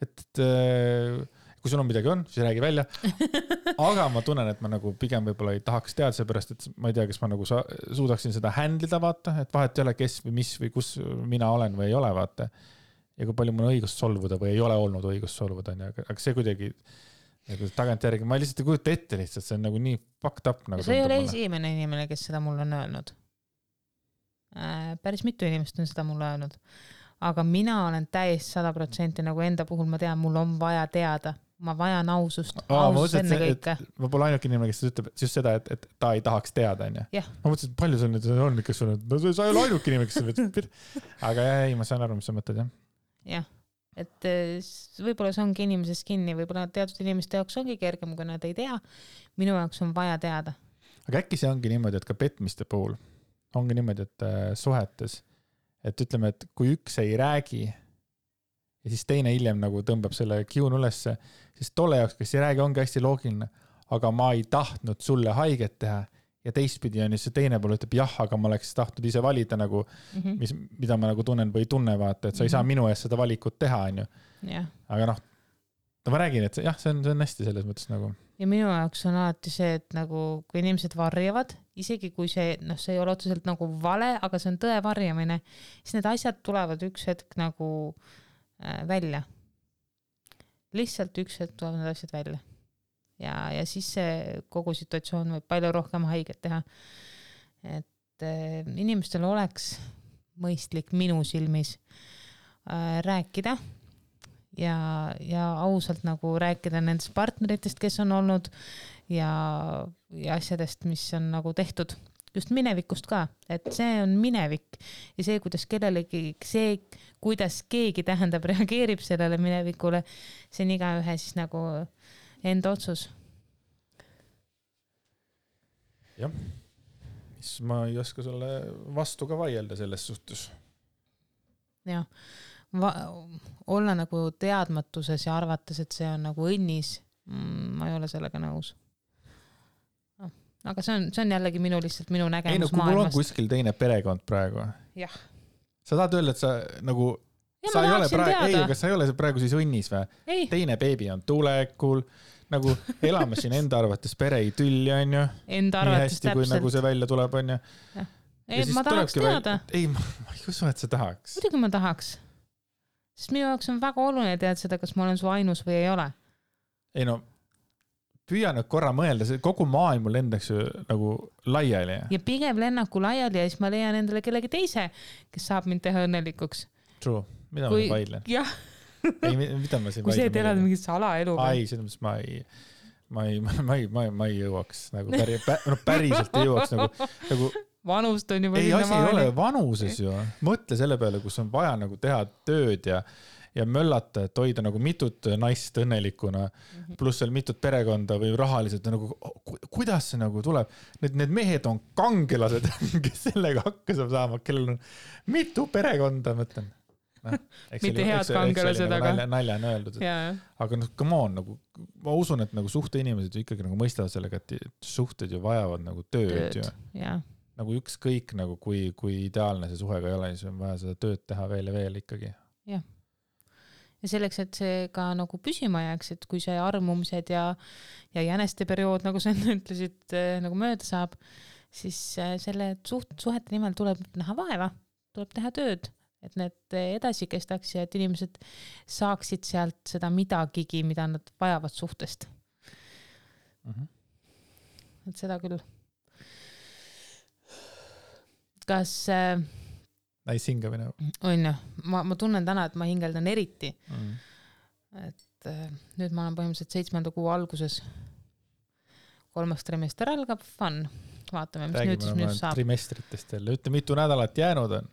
Et kui sul on midagi on, siis räägi välja. Aga ma tunnen, et ma nagu pigem võib-olla ei tahaks teada, seepärast, et ma ei tea, kas ma nagu suudaksin seda handlida, vaata, et vahet ei ole, kes või mis või kus mina olen või ei ole, vaata. Ja kui palju mul on õigust solvuda või ei ole olnud õigust solvuda, aga see kuidagi nagu tagantjärgi, ma lihtsalt ei kujuta ette lihtsalt, see on nagu nii fucked up. Nagu see ei ole esimene inimene, kes seda mulle on öelnud. Päris mitu inimest on seda mulle öelnud. Aga mina olen täiesti 100% nagu enda puhul ma tean, mul on vaja teada. Ma vajan ausust enne kõike. Ma pole ainuke inimene, kes ütleb just seda, et ta ei tahaks teada. Yeah. Ma mõtlesin, et palju sul nüüd on, kes sul on, sa ei ole ainuke inimene, kes ütleb. Aga ei, ma saan aru, mis sa mõtled, jah. Jah, et võib-olla see ongi inimesest kinni, võib-olla teatud inimeste jaoks ongi kergem, kui nad ei tea. Minu jaoks on vaja teada. Aga äkki see ongi niimoodi, et ka petmiste puhul ongi niimoodi, et suhetes, et ütleme, et kui üks ei räägi ja siis teine hiljem nagu tõmbab selle kiun ülesse, siis tolle jaoks, kes ei räägi, ongi hästi loogiline, aga ma ei tahtnud sulle haiget teha ja teistpidi on see teine pool ütleb jah, aga ma oleks tahtnud ise valida nagu, mida ma nagu tunnen või ei tunne, vaata, et sa ei saa minu eest seda valikut teha, on ju. Yeah. Aga ma räägin, et jah, see on hästi selles mõttes nagu. Ja minu jaoks on alati see, et nagu, kui inimesed varjavad, isegi kui see ei ole otseselt nagu vale, aga see on tõe varjamine, siis need asjad tulevad üks hetk nagu välja. Lihtsalt üks hetk tulevad need asjad välja. Ja siis see kogu situatsioon võib palju rohkem haiget teha. Et inimestel oleks mõistlik minu silmis rääkida ja ausalt nagu rääkida nendest partneritest, kes on olnud ja asjadest, mis on nagu tehtud. Just minevikust ka, et see on minevik ja see, kuidas keegi tähendab reageerib sellele minevikule, see on igaühe siis nagu enda otsus. Jah, mis ma ei oska sulle vastu ka vaielda selles suhtes. Jah, olla nagu teadmatuses ja arvates, et see on nagu õnnis, ma ei ole sellega nõus. Aga see on jällegi minu nägemus maailmast. Kui mul on kuskil teine perekond praegu. Jah. Sa tahad öelda, et sa nagu... Ja sa ei ole praegu siis õnnis või? Ei. Teine beebi on tulekul, nagu elame siin enda arvates pere ei tülli, on ju. Enda arvates täpselt. Kui nagu see välja tuleb, on ju. Ei, ma tahaks teada. Ei, ma ei usu, et sa tahaks. Muidugi ma tahaks. Sest minu jaoks on väga oluline teada seda, kas ma olen su ainus või ei ole. Ei no... Püüa nüüd korra mõelda, kogu maailm lendaks ju nagu laiali. Ja pigem lennaku laiali ja siis ma leian endale kellegi teise, kes saab mind teha õnnelikuks. True, mida ma vaidlen? Jah. Ei, mida ma siin kui see elad mingit salaelu. Ai, selles mõttes ma ei jõuaks. Nagu päriselt ei jõuaks. Nagu, vanust on juba ei, asi ei ole vanuses ju. Mõtle selle peale, kus on vaja nagu teha tööd ja möllata, et hoida nagu mitut naist õnnelikuna, pluss veel mitut perekonda või rahaliselt, nagu, kuidas see nagu tuleb? Need mehed on kangelased, kes sellega hakkab saama, kellel on mitu perekonda, mõtlen. Mitte head kangelased, aga... Nalja on öeldud. Aga come on, nagu, ma usun, et nagu suhte inimesed ju ikkagi nagu mõistavad sellega, et suhted ju vajavad nagu tööd. Ja. nagu ükskõik nagu kui ideaalne see suhe ka ei ole, siis on vaja seda tööd teha veel ja veel ikkagi. Jah. Ja selleks, et see ka nagu püsima jääks, et kui see armumised ja jäneste periood, nagu sa ütlesid, nagu mööda saab, siis selle suhete nimel tuleb näha vaeva, tuleb teha tööd, et need edasi kestaks ja et inimesed saaksid sealt seda midagigi, mida nad vajavad suhtest. Et seda küll. Kas näis hingamine. On ju, ma tunnen täna, et ma hingeldan eriti. Et nüüd ma olen põhimõtteliselt 7. kuu alguses. 3. trimester algab, fun. Vaatame, mis nüüd siis minust saab. Trimestritest jälle. Ütle, mitu nädalat jäänud on?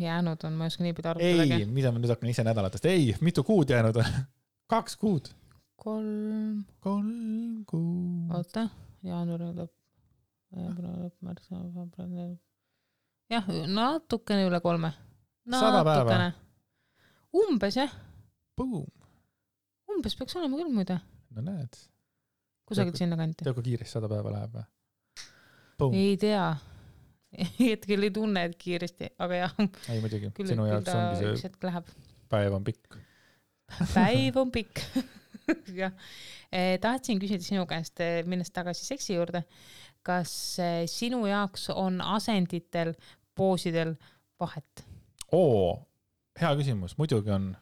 Jäänud on, ma ei oska nii pidi arvutadagi. Ei, mida ma nüüd hakkan ise nädalatest? Ei, mitu kuud jäänud on? 2 kuud. 3 kuud. Oota, jaanuari lõpp. Jah, natukene üle 3. 100 päeva. Umbes, jah. Boom. Umbes peaks olema küll muide. No näed. Kusagil sinna kanti. Tead, kui kiiresti 100 päeva läheb või? Boom. Ei tea. Hetkel ei tunne, et kiiresti, aga jah. Ei muidugi, sinu jaoks ongi see päev on pikk. Päev on pikk. Jah. Tahtsin küsida sinu käest, minnes tagasi seksi juurde. Kas sinu jaoks on asenditel, poosidel vahet? Hea küsimus, muidugi on.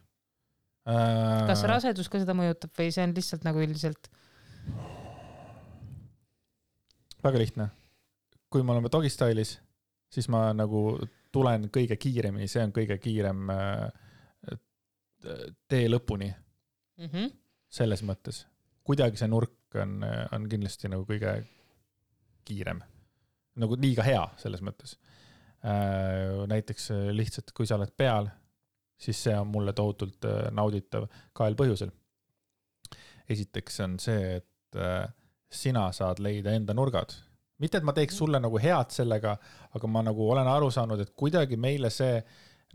Kas rasedus ka seda mõjutab või see on lihtsalt nagu üldiselt? Väga lihtne. Kui me oleme dogistyle'is, siis ma nagu tulen kõige kiiremini, see on kõige kiirem tee lõpuni. Selles mõttes. Kuidagi see nurk on kindlasti nagu kõige kiirem. Nagu liiga hea selles mõttes. Näiteks lihtsalt, kui sa oled peal, siis see on mulle tohutult nauditav kahel põhjusel. Esiteks on see, et sina saad leida enda nurgad. Mitte, et ma teeks sulle nagu head sellega, aga ma nagu olen aru saanud, et kuidagi meile see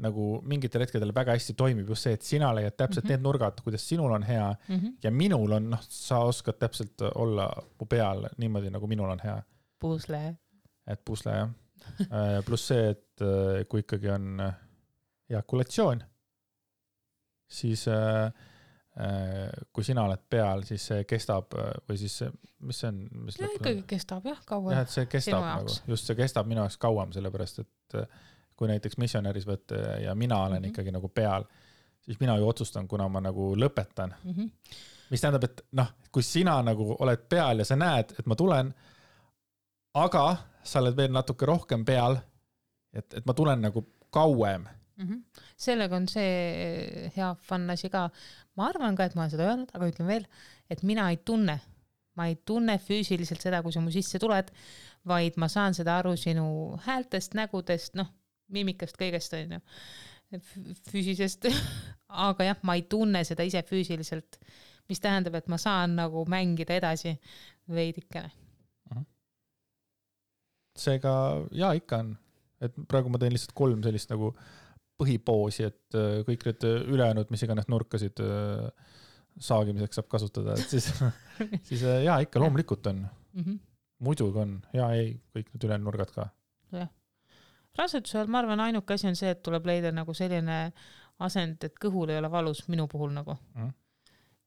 nagu mingitel hetkedel väga hästi toimib just see, et sina leiad täpselt need nurgad, kuidas sinul on hea ja minul on, sa oskad täpselt olla mu peal niimoodi, nagu minul on hea. Pusle. Et pusle, jah. Plus see, et kui ikkagi on ejakulatsioon, siis kui sina oled peal, siis see kestab või siis mis see on? Ja ikkagi kestab, jah, kauem. Jah, et see kestab nagu, just see kestab minu jaoks kauem, sellepärast, et kui näiteks missionäris võtta ja mina olen ikkagi nagu peal, siis mina ju otsustan, kuna ma nagu lõpetan. Mis tähendab, et kui sina nagu oled peal ja sa näed, et ma tulen, aga sa oled veel natuke rohkem peal, et ma tulen nagu kauem. Sellega on see hea fun asi ka. Ma arvan ka, et ma olen seda öelnud, aga ütlen veel, et mina ei tunne. Ma ei tunne füüsiliselt seda, kui sa mu sisse tuled, vaid ma saan seda aru sinu häältest, nägudest, mimikast, kõigest on ju, füüsisest, aga jah, ma ei tunne seda ise füüsiliselt, mis tähendab, et ma saan nagu mängida edasi veidikene. Seega, jaa, ikka on, et praegu ma teen lihtsalt 3 sellist nagu põhipoosi, et kõik need ülejäänud, mis iganes nurkasid saagimiseks saab kasutada, et siis jaa, ikka loomulikult on. Muidugi on, jaa, ei, kõik need ülejäänud nurgad ka. Jah. Rasedusel, ma arvan, ainuke asi on see, et tuleb leida nagu selline asend, et kõhul ei ole valus minu puhul nagu.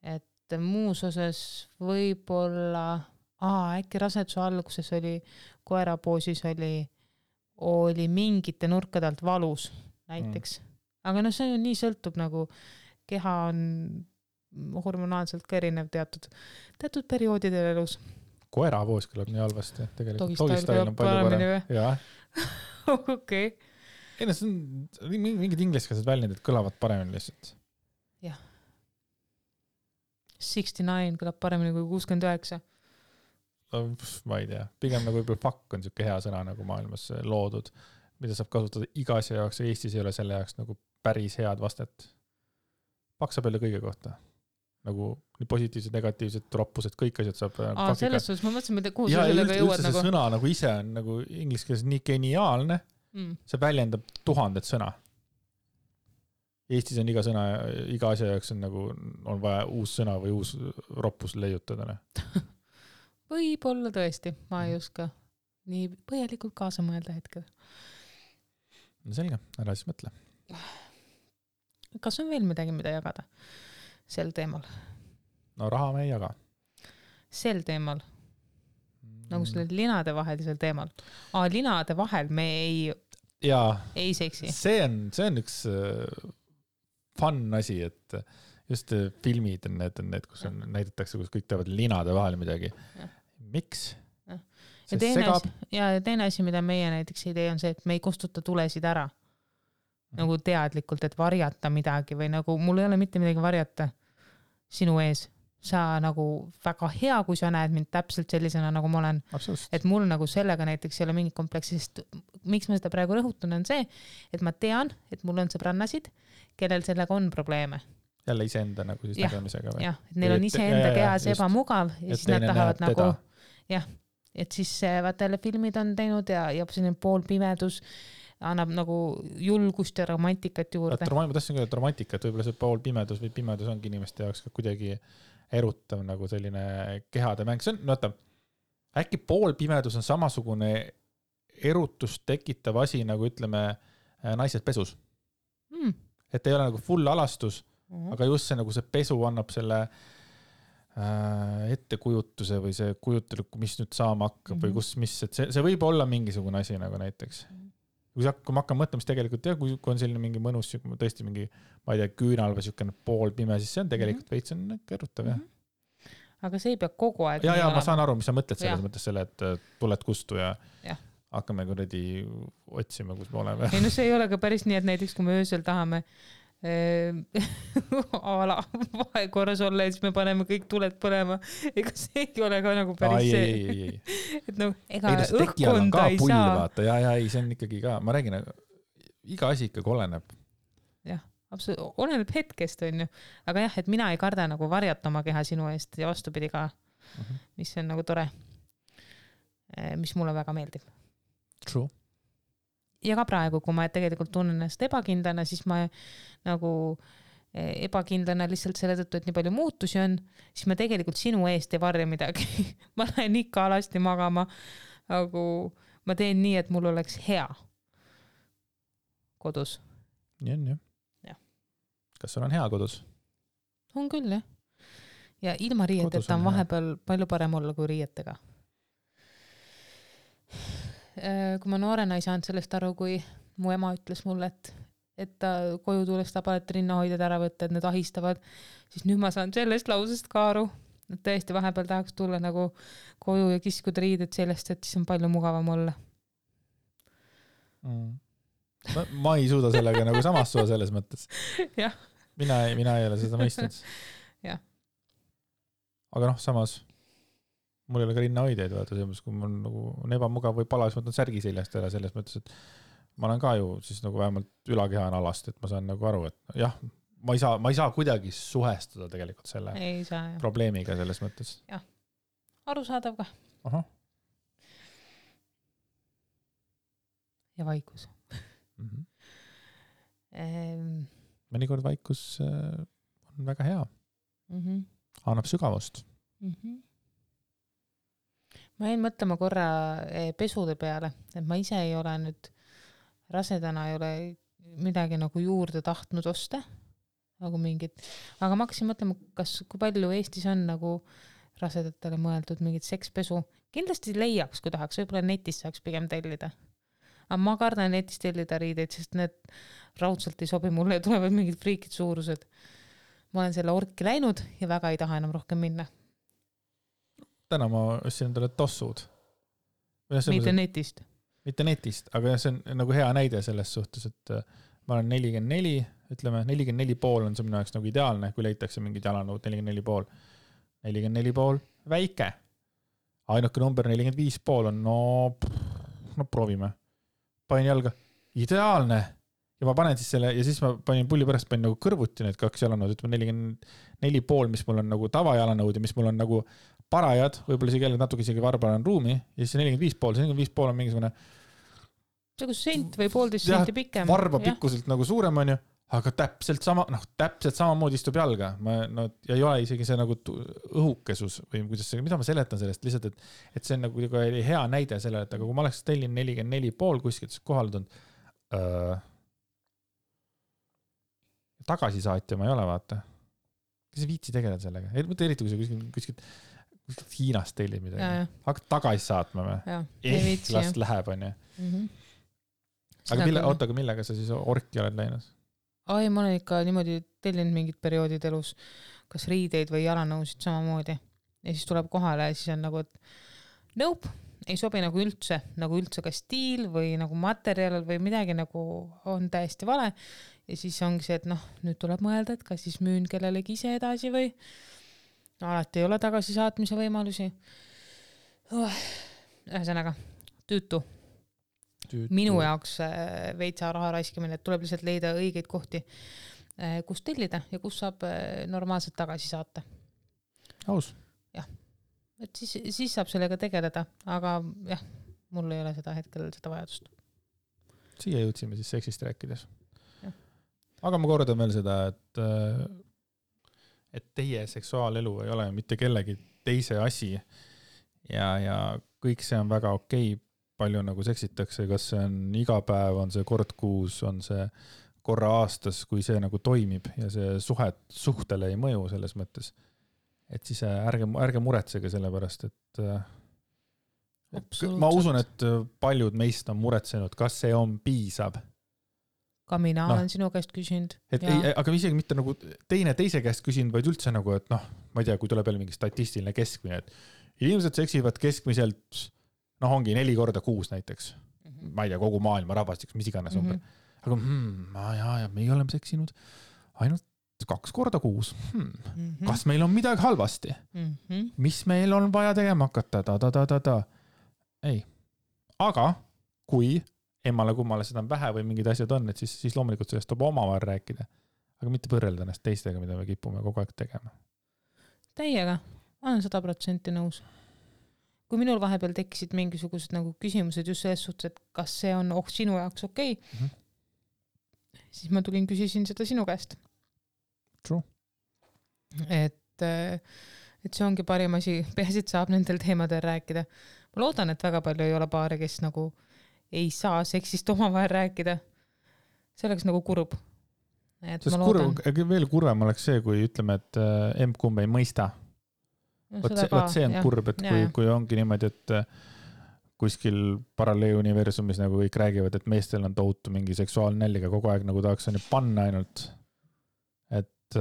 Et muus osas võib-olla, äkki raseduse alguses oli, koerapoosis oli mingite nurkade alt valus näiteks. Aga see on nii sõltub nagu, keha on hormonaalselt ka erinev teatud perioodidel elus. Koerapoos kõlab nii halvasti, tegelikult. Dogistyle on palju parem. Jah. Okei. Ei, see on mingid ingliskeelsed väljendid kõlavad paremini lihtsalt. Jah. 69 kõlab paremini kui 69. Ma ei tea. Pigem nagu võib-olla fuck on siuke hea sõna nagu maailmas loodud, mida saab kasutada iga asja jaoks ja Eestis ei ole selle jaoks nagu päris head vastet. Paksa peale kõige kohta. Nagu nii positiivsed, negatiivsed, roppused, kõik asjad saab selles suhtes ma mõtlesin, kuhu sa sellega jõuad nagu. Ja sõna nagu ise on nagu ingliskeeles nii geniaalne, see väljendab 1000 sõna. Eestis on iga sõna, iga asja jaoks on nagu, on vaja uus sõna või uus roppus leiutada. Võib-olla tõesti, ma ei oska nii põhjalikult kaasa mõelda hetkel. No selge, ära siis mõtle. Kas on veel midagi, mida jagada sel teemal? No raha me ei jaga. Sel teemal? Nagu selle linade vahelisel teemal. Linade vahel me ei seksi. See on üks fun asi, et just filmid on need, kus näidatakse, kus kõik teevad linade vahel midagi. Miks? Ja teine asi, mida meie näiteks ei tee, on see, et me ei kustuta tulesid ära. Nagu teadlikult, et varjata midagi või nagu mul ei ole mitte midagi varjata sinu ees. Sa nagu väga hea, kui sa näed mind täpselt sellisena, nagu ma olen. Absolut. Et mul nagu sellega näiteks ei ole mingit kompleksi, sest miks ma seda praegu rõhutan on see, et ma tean, et mul on sõbrannasid, kellel sellega on probleeme. Jälle iseenda nagu siis nägemisega või? Jah, et neil on iseenda kehas ebamugav ja siis nad tahavad nagu et siis vaata jälle filmid on teinud ja selline poolpimedus annab nagu julgust ja romantikat juurde. Ma tahtsin küll, et romantikat, võib-olla see poolpimedus või pimedus ongi inimeste jaoks ka kuidagi erutav nagu selline kehade mäng. See on, vaata, äkki poolpimedus on samasugune erutust tekitav asi, nagu ütleme naised pesus. Et ei ole nagu full alastus, aga just see, nagu see pesu annab selle ettekujutuse või see kujutel, mis nüüd saama hakkab või kus, mis, et see võib olla mingisugune asi nagu näiteks. Kui ma hakkan mõtlema, siis tegelikult kui on selline mingi mõnus, tõesti mingi, ma ei tea, küünal või selline poolpime, siis see on tegelikult veits on kerutav, jah. Aga see ei pea kogu aeg. Ja ma saan aru, mis sa mõtled selles mõttes selle, et tuled kustu ja hakkame kuradi otsima, kus me oleme. Ei, no see ei ole ka päris nii, et näiteks kui me öösel tahame vahekorras olla ja siis me paneme kõik tuled põlema. Ega see ei ole ka nagu päris see. Et no, ega õhkkonda ei saa. Vaata. Ja, see on ikkagi ka, ma räägin, iga asi ikkagi oleneb. Jah, absoluutselt, oleneb hetkest on ju. Aga jah, et mina ei karda nagu varjata oma keha sinu eest ja vastupidi ka, mis on nagu tore, mis mulle väga meeldib. True. Ja ka praegu, kui ma tegelikult tunnen ennast ebakindlana, siis ma nagu ebakindlana lihtsalt selle tõttu, et nii palju muutusi on, siis ma tegelikult sinu eest ei varja midagi. Ma lähen ikka alasti magama, aga ma teen nii, et mul oleks hea kodus. Nii on, jah. Kas sul on hea kodus? On küll, jah. Ja ilma riieteta on vahepeal palju parem olla kui riietega. Kui ma noorena ei saanud sellest aru, kui mu ema ütles mulle, et ta koju tuleks ta palet rinnahoidjad ära võtta, et need ahistavad, siis nüüd ma saan sellest lausest ka aru, et tõesti vahepeal tahaks tulla nagu koju ja kiskuda riided sellest, et siis on palju mugavam olla. Ma ei suuda sellega nagu samastua selles mõttes. Jah. Mina ei ole seda mõistnud. Jah. Aga samas mul ei ole ka rinnahoideid, vaata, kui mul nagu on ebamugav või pala, siis ma võtan särgi seljast ära selles mõttes, et ma olen ka ju siis nagu vähemalt ülakeha on alast, et ma saan nagu aru, et jah, ma ei saa kuidagi suhestuda tegelikult selle probleemiga selles mõttes. Jah, arusaadav ka. Aha. Ja vaikus. Mõnikord vaikus on väga hea. Annab sügavust. Ma jäin mõtlema korra pesude peale, et ma ise ei ole nüüd rasedana ei ole midagi nagu juurde tahtnud osta, nagu mingit, aga ma hakkasin mõtlema, kui palju Eestis on nagu rasedatele mõeldud mingit sekspesu. Kindlasti leiaks, kui tahaks, võib-olla netis saaks pigem tellida. Aga ma kardan netis tellida riideid, sest need raudselt ei sobi mulle ja tulevad mingid friikid suurused. Ma olen selle orki läinud ja väga ei taha enam rohkem minna. Täna ma ostsin endale tossud. Mitte netist. Mitte netist, aga see on nagu hea näide selles suhtes, et ma olen 44, ütleme 44,5 on see minu jaoks nagu ideaalne, kui leitakse mingid jalanõud 44,5. 44,5 väike. Ainuke number 45,5 on no proovime. Panin jalga. Ideaalne. Ja ma panen siis selle, ja siis ma panin pulli pärast panin nagu kõrvuti need 2 jalanõud, ütleme 44,5, mis mul on nagu tavajalanõud ja mis mul on nagu parajad, võib-olla isegi natuke isegi varbal on ruumi, ja siis 45,5 on mingisugune see kui sent või 1,5 senti pikem. Varba pikkuselt nagu suurem on ju, aga täpselt samamoodi istub jalga. Ja ei ole isegi see nagu õhukesus või kuidas see, mida ma seletan sellest lihtsalt, et see on nagu hea näide sellele, et aga kui ma oleks tellin 44,5 kuskilt kohaldanud, tagasisaatja ma ei ole, vaata. Kas ei viitsi tegeleda sellega? Eriti kui sa kuskilt Hiinast tellid midagi. Hakkad tagasi saatma või? Last läheb, on ju. Aga millega sa siis orki oled läinud? Ai, ma olen ikka niimoodi tellinud mingid perioodid elus, kas riideid või jalanõusid samamoodi. Ja siis tuleb kohale ja siis on nagu, et nope, ei sobi nagu üldse ka stiil või nagu materjal või midagi nagu on täiesti vale. Ja siis ongi see, et nüüd tuleb mõelda, et kas siis müün kellelegi ise edasi või alati ei ole tagasi saatmise võimalusi. Ühesõnaga, tüütu. Minu jaoks veitsa raha raiskimine, et tuleb lihtsalt leida õigeid kohti, kus tellida ja kus saab normaalselt tagasi saata. Aus. Jah, et siis saab sellega tegeleda, aga jah, mul ei ole seda hetkel seda vajadust. Siia jõudsime siis seksist rääkides. Ja. Aga ma kordan veel seda, et teie seksuaalelu ei ole mitte kellegi teise asi ja kõik see on väga okei. Palju nagu seksitakse, kas see on iga päev, on see kord kuus, on see korra aastas, kui see nagu toimib ja see suhtele ei mõju selles mõttes. Et siis ärge muretsege selle pärast, et ma usun, et paljud meist on muretsenud, kas see on piisav. Ka mina olen sinu käest küsinud. Aga isegi mitte nagu teise käest küsinud, vaid üldse nagu, et ma ei tea, kui tuleb jälle mingi statistiline keskmine, et inimesed seksivad keskmiselt ongi 4 korda kuus näiteks. Ma ei tea, kogu maailma rahvastiks, mis iganes umber. Aga me oleme seksinud ainult 2 korda kuus. Kas meil on midagi halvasti? Mis meil on vaja tegema hakata? Ei. Aga kui emmale kummale seda on vähe või mingid asjad on, et siis loomulikult sellest tuleb omavahel rääkida. Aga mitte põrrelda ennast teistega, mida me kipume kogu aeg tegema. Täiega. Ma olen 100% nõus. Kui minul vahepeal tekkisid mingisugused nagu küsimused just selles suhtes, et kas see on sinu jaoks okei, siis ma küsisin seda sinu käest. True. Et see ongi parim asi, peasid saab nendel teemadel rääkida. Ma loodan, et väga palju ei ole paare, kes nagu ei saa seksist omavahel rääkida. See oleks nagu kurb. Veel kurvem oleks see, kui ütleme, et emb-kumb ei mõista. Võt see on kurb, et kui ongi niimoodi, et kuskil paralleeluniversumis nagu kõik räägivad, et meestel on tohutu mingi seksuaalne nälga kogu aeg nagu tahaks on panna ainult, et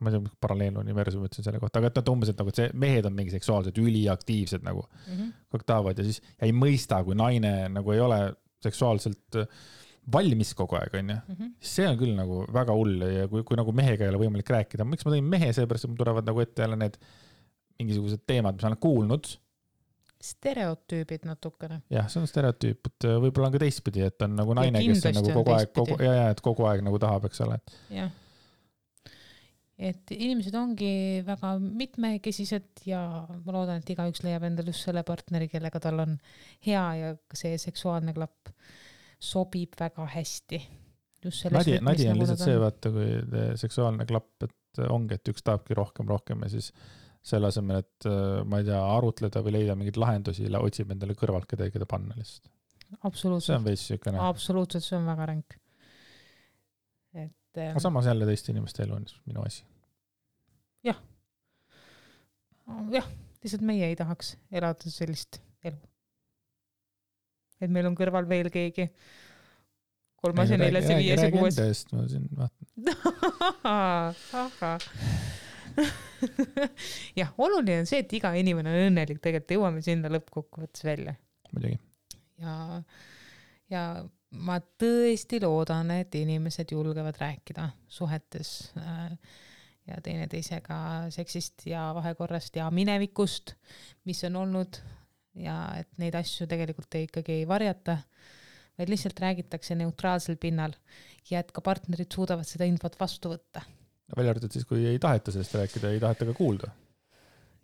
ma ei tea, paralleeluniversum ütlesin selle kohta, aga et umbes, et nagu see mehed on mingi seksuaalsed üliaktiivsed nagu kõik tahavad ja siis ei mõista, kui naine nagu ei ole seksuaalselt valmis kogu aeg, on ju. See on küll nagu väga hull ja kui nagu mehega ei ole võimalik rääkida. Miks ma tõin mehe, seepärast, et mul tulevad nagu ette jälle need mingisugused teemad, mis olen kuulnud. Stereotüübid natukene. Jah, see on stereotüüp, et võib-olla on ka teistpidi, et on nagu naine, kes on nagu kogu aeg nagu tahab, eks ole. Jah. Et inimesed ongi väga mitmekesised ja ma loodan, et igaüks leiab endal just selle partneri, kellega tal on hea ja see seksuaalne klapp sobib väga hästi. Nadi on lihtsalt see, vaata, kui seksuaalne klapp, et ongi, et üks tahabki rohkem ja siis selle asemel, et ma ei tea, arutleda või leida mingeid lahendusi, otsib endale kõrvalt kedagi panna lihtsalt. Absoluutselt. See on veits sükene. Absoluutselt, see on väga ränk. Aga samas jälle teiste inimeste elu on minu asi. Jah. Jah, lihtsalt meie ei tahaks elada sellist elu. Et meil on kõrval veel keegi 3., 4., 5., 6. Ma siin vaatan. Jah, oluline on see, et iga inimene on õnnelik, tegelikult jõuame sinna lõppkokkuvõttes välja. Muidugi. Ja ma tõesti loodan, et inimesed julgevad rääkida suhetes ja teineteisega seksist ja vahekorrast ja minevikust, mis on olnud ja et neid asju tegelikult ikkagi ei varjata, vaid lihtsalt räägitakse neutraalsel pinnal ja et ka partnerid suudavad seda infot vastu võtta. Välja arvatud siis, kui ei taheta sellest rääkida, ei taheta ka kuulda.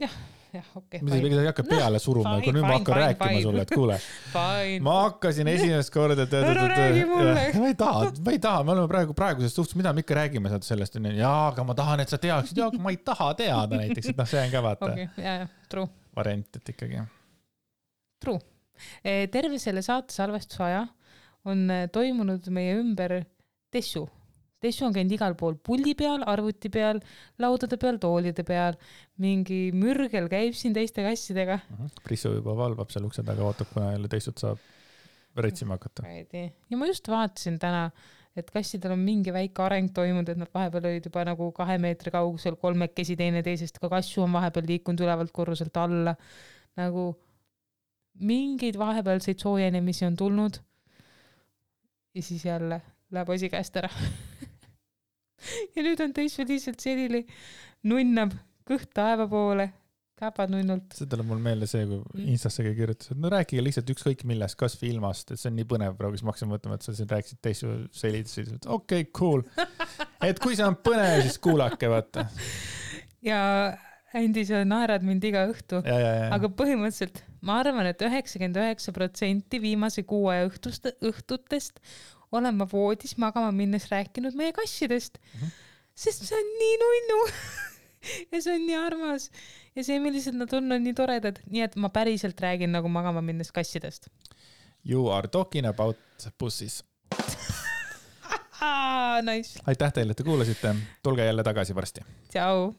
Jah, jah, okei. Mida ei hakka peale suruma, kui nüüd ma hakkan rääkima sulle, et kuule, ma hakkasin esimest korda, ma ei taha, me oleme praegusest suhtes, mida me ikka räägime sellest, aga ma tahan, et sa teaksid, aga ma ei taha teada näiteks, et see on ka vaata true. Variant, et ikkagi. True. Terve selle saate salvestusaja on toimunud meie ümber tessu. Tessu on käinud igal pool puldi peal, arvuti peal, laudade peal, toolide peal. Mingi mürgel käib siin teiste kassidega. Prissu juba valvab seal ukse taga, ootab, kuna jälle teistut saab retsima hakata. Ja ma just vaatasin täna, et kassidel on mingi väike areng toimunud, et nad vahepeal olid juba nagu 2 meetri kaugusel, 3 teine teisest, ka kassu on vahepeal liikunud ülevalt korruselt alla. Nagu mingeid vahepealseid soojenemisi on tulnud ja siis jälle läheb asi käest ära. Ja nüüd on teisel lihtsalt selline nunnab kõht taeva poole, käpad nunnult. See tuleb mul meelde see, kui Instassegi kirjutas, et no rääkige lihtsalt ükskõik millest, kas või ilmast, et see on nii põnev praegu, siis ma hakkasin mõtlema, et sa siin rääkisid teisel selitasid, et okei, cool. Et kui see on põnev, siis kuulake, vaata. Ja Andi, sa naerad mind iga õhtu, aga põhimõtteliselt ma arvan, et 99% viimase 6 õhtutest olen ma voodis magama minnes rääkinud meie kassidest, sest see on nii nunnu ja see on nii armas ja see, millised nad on nii toredad, nii et ma päriselt räägin nagu magama minnes kassidest. You are talking about pussies. Nice. Aitäh teile, et te kuulasite. Tulge jälle tagasi varsti. Tšau.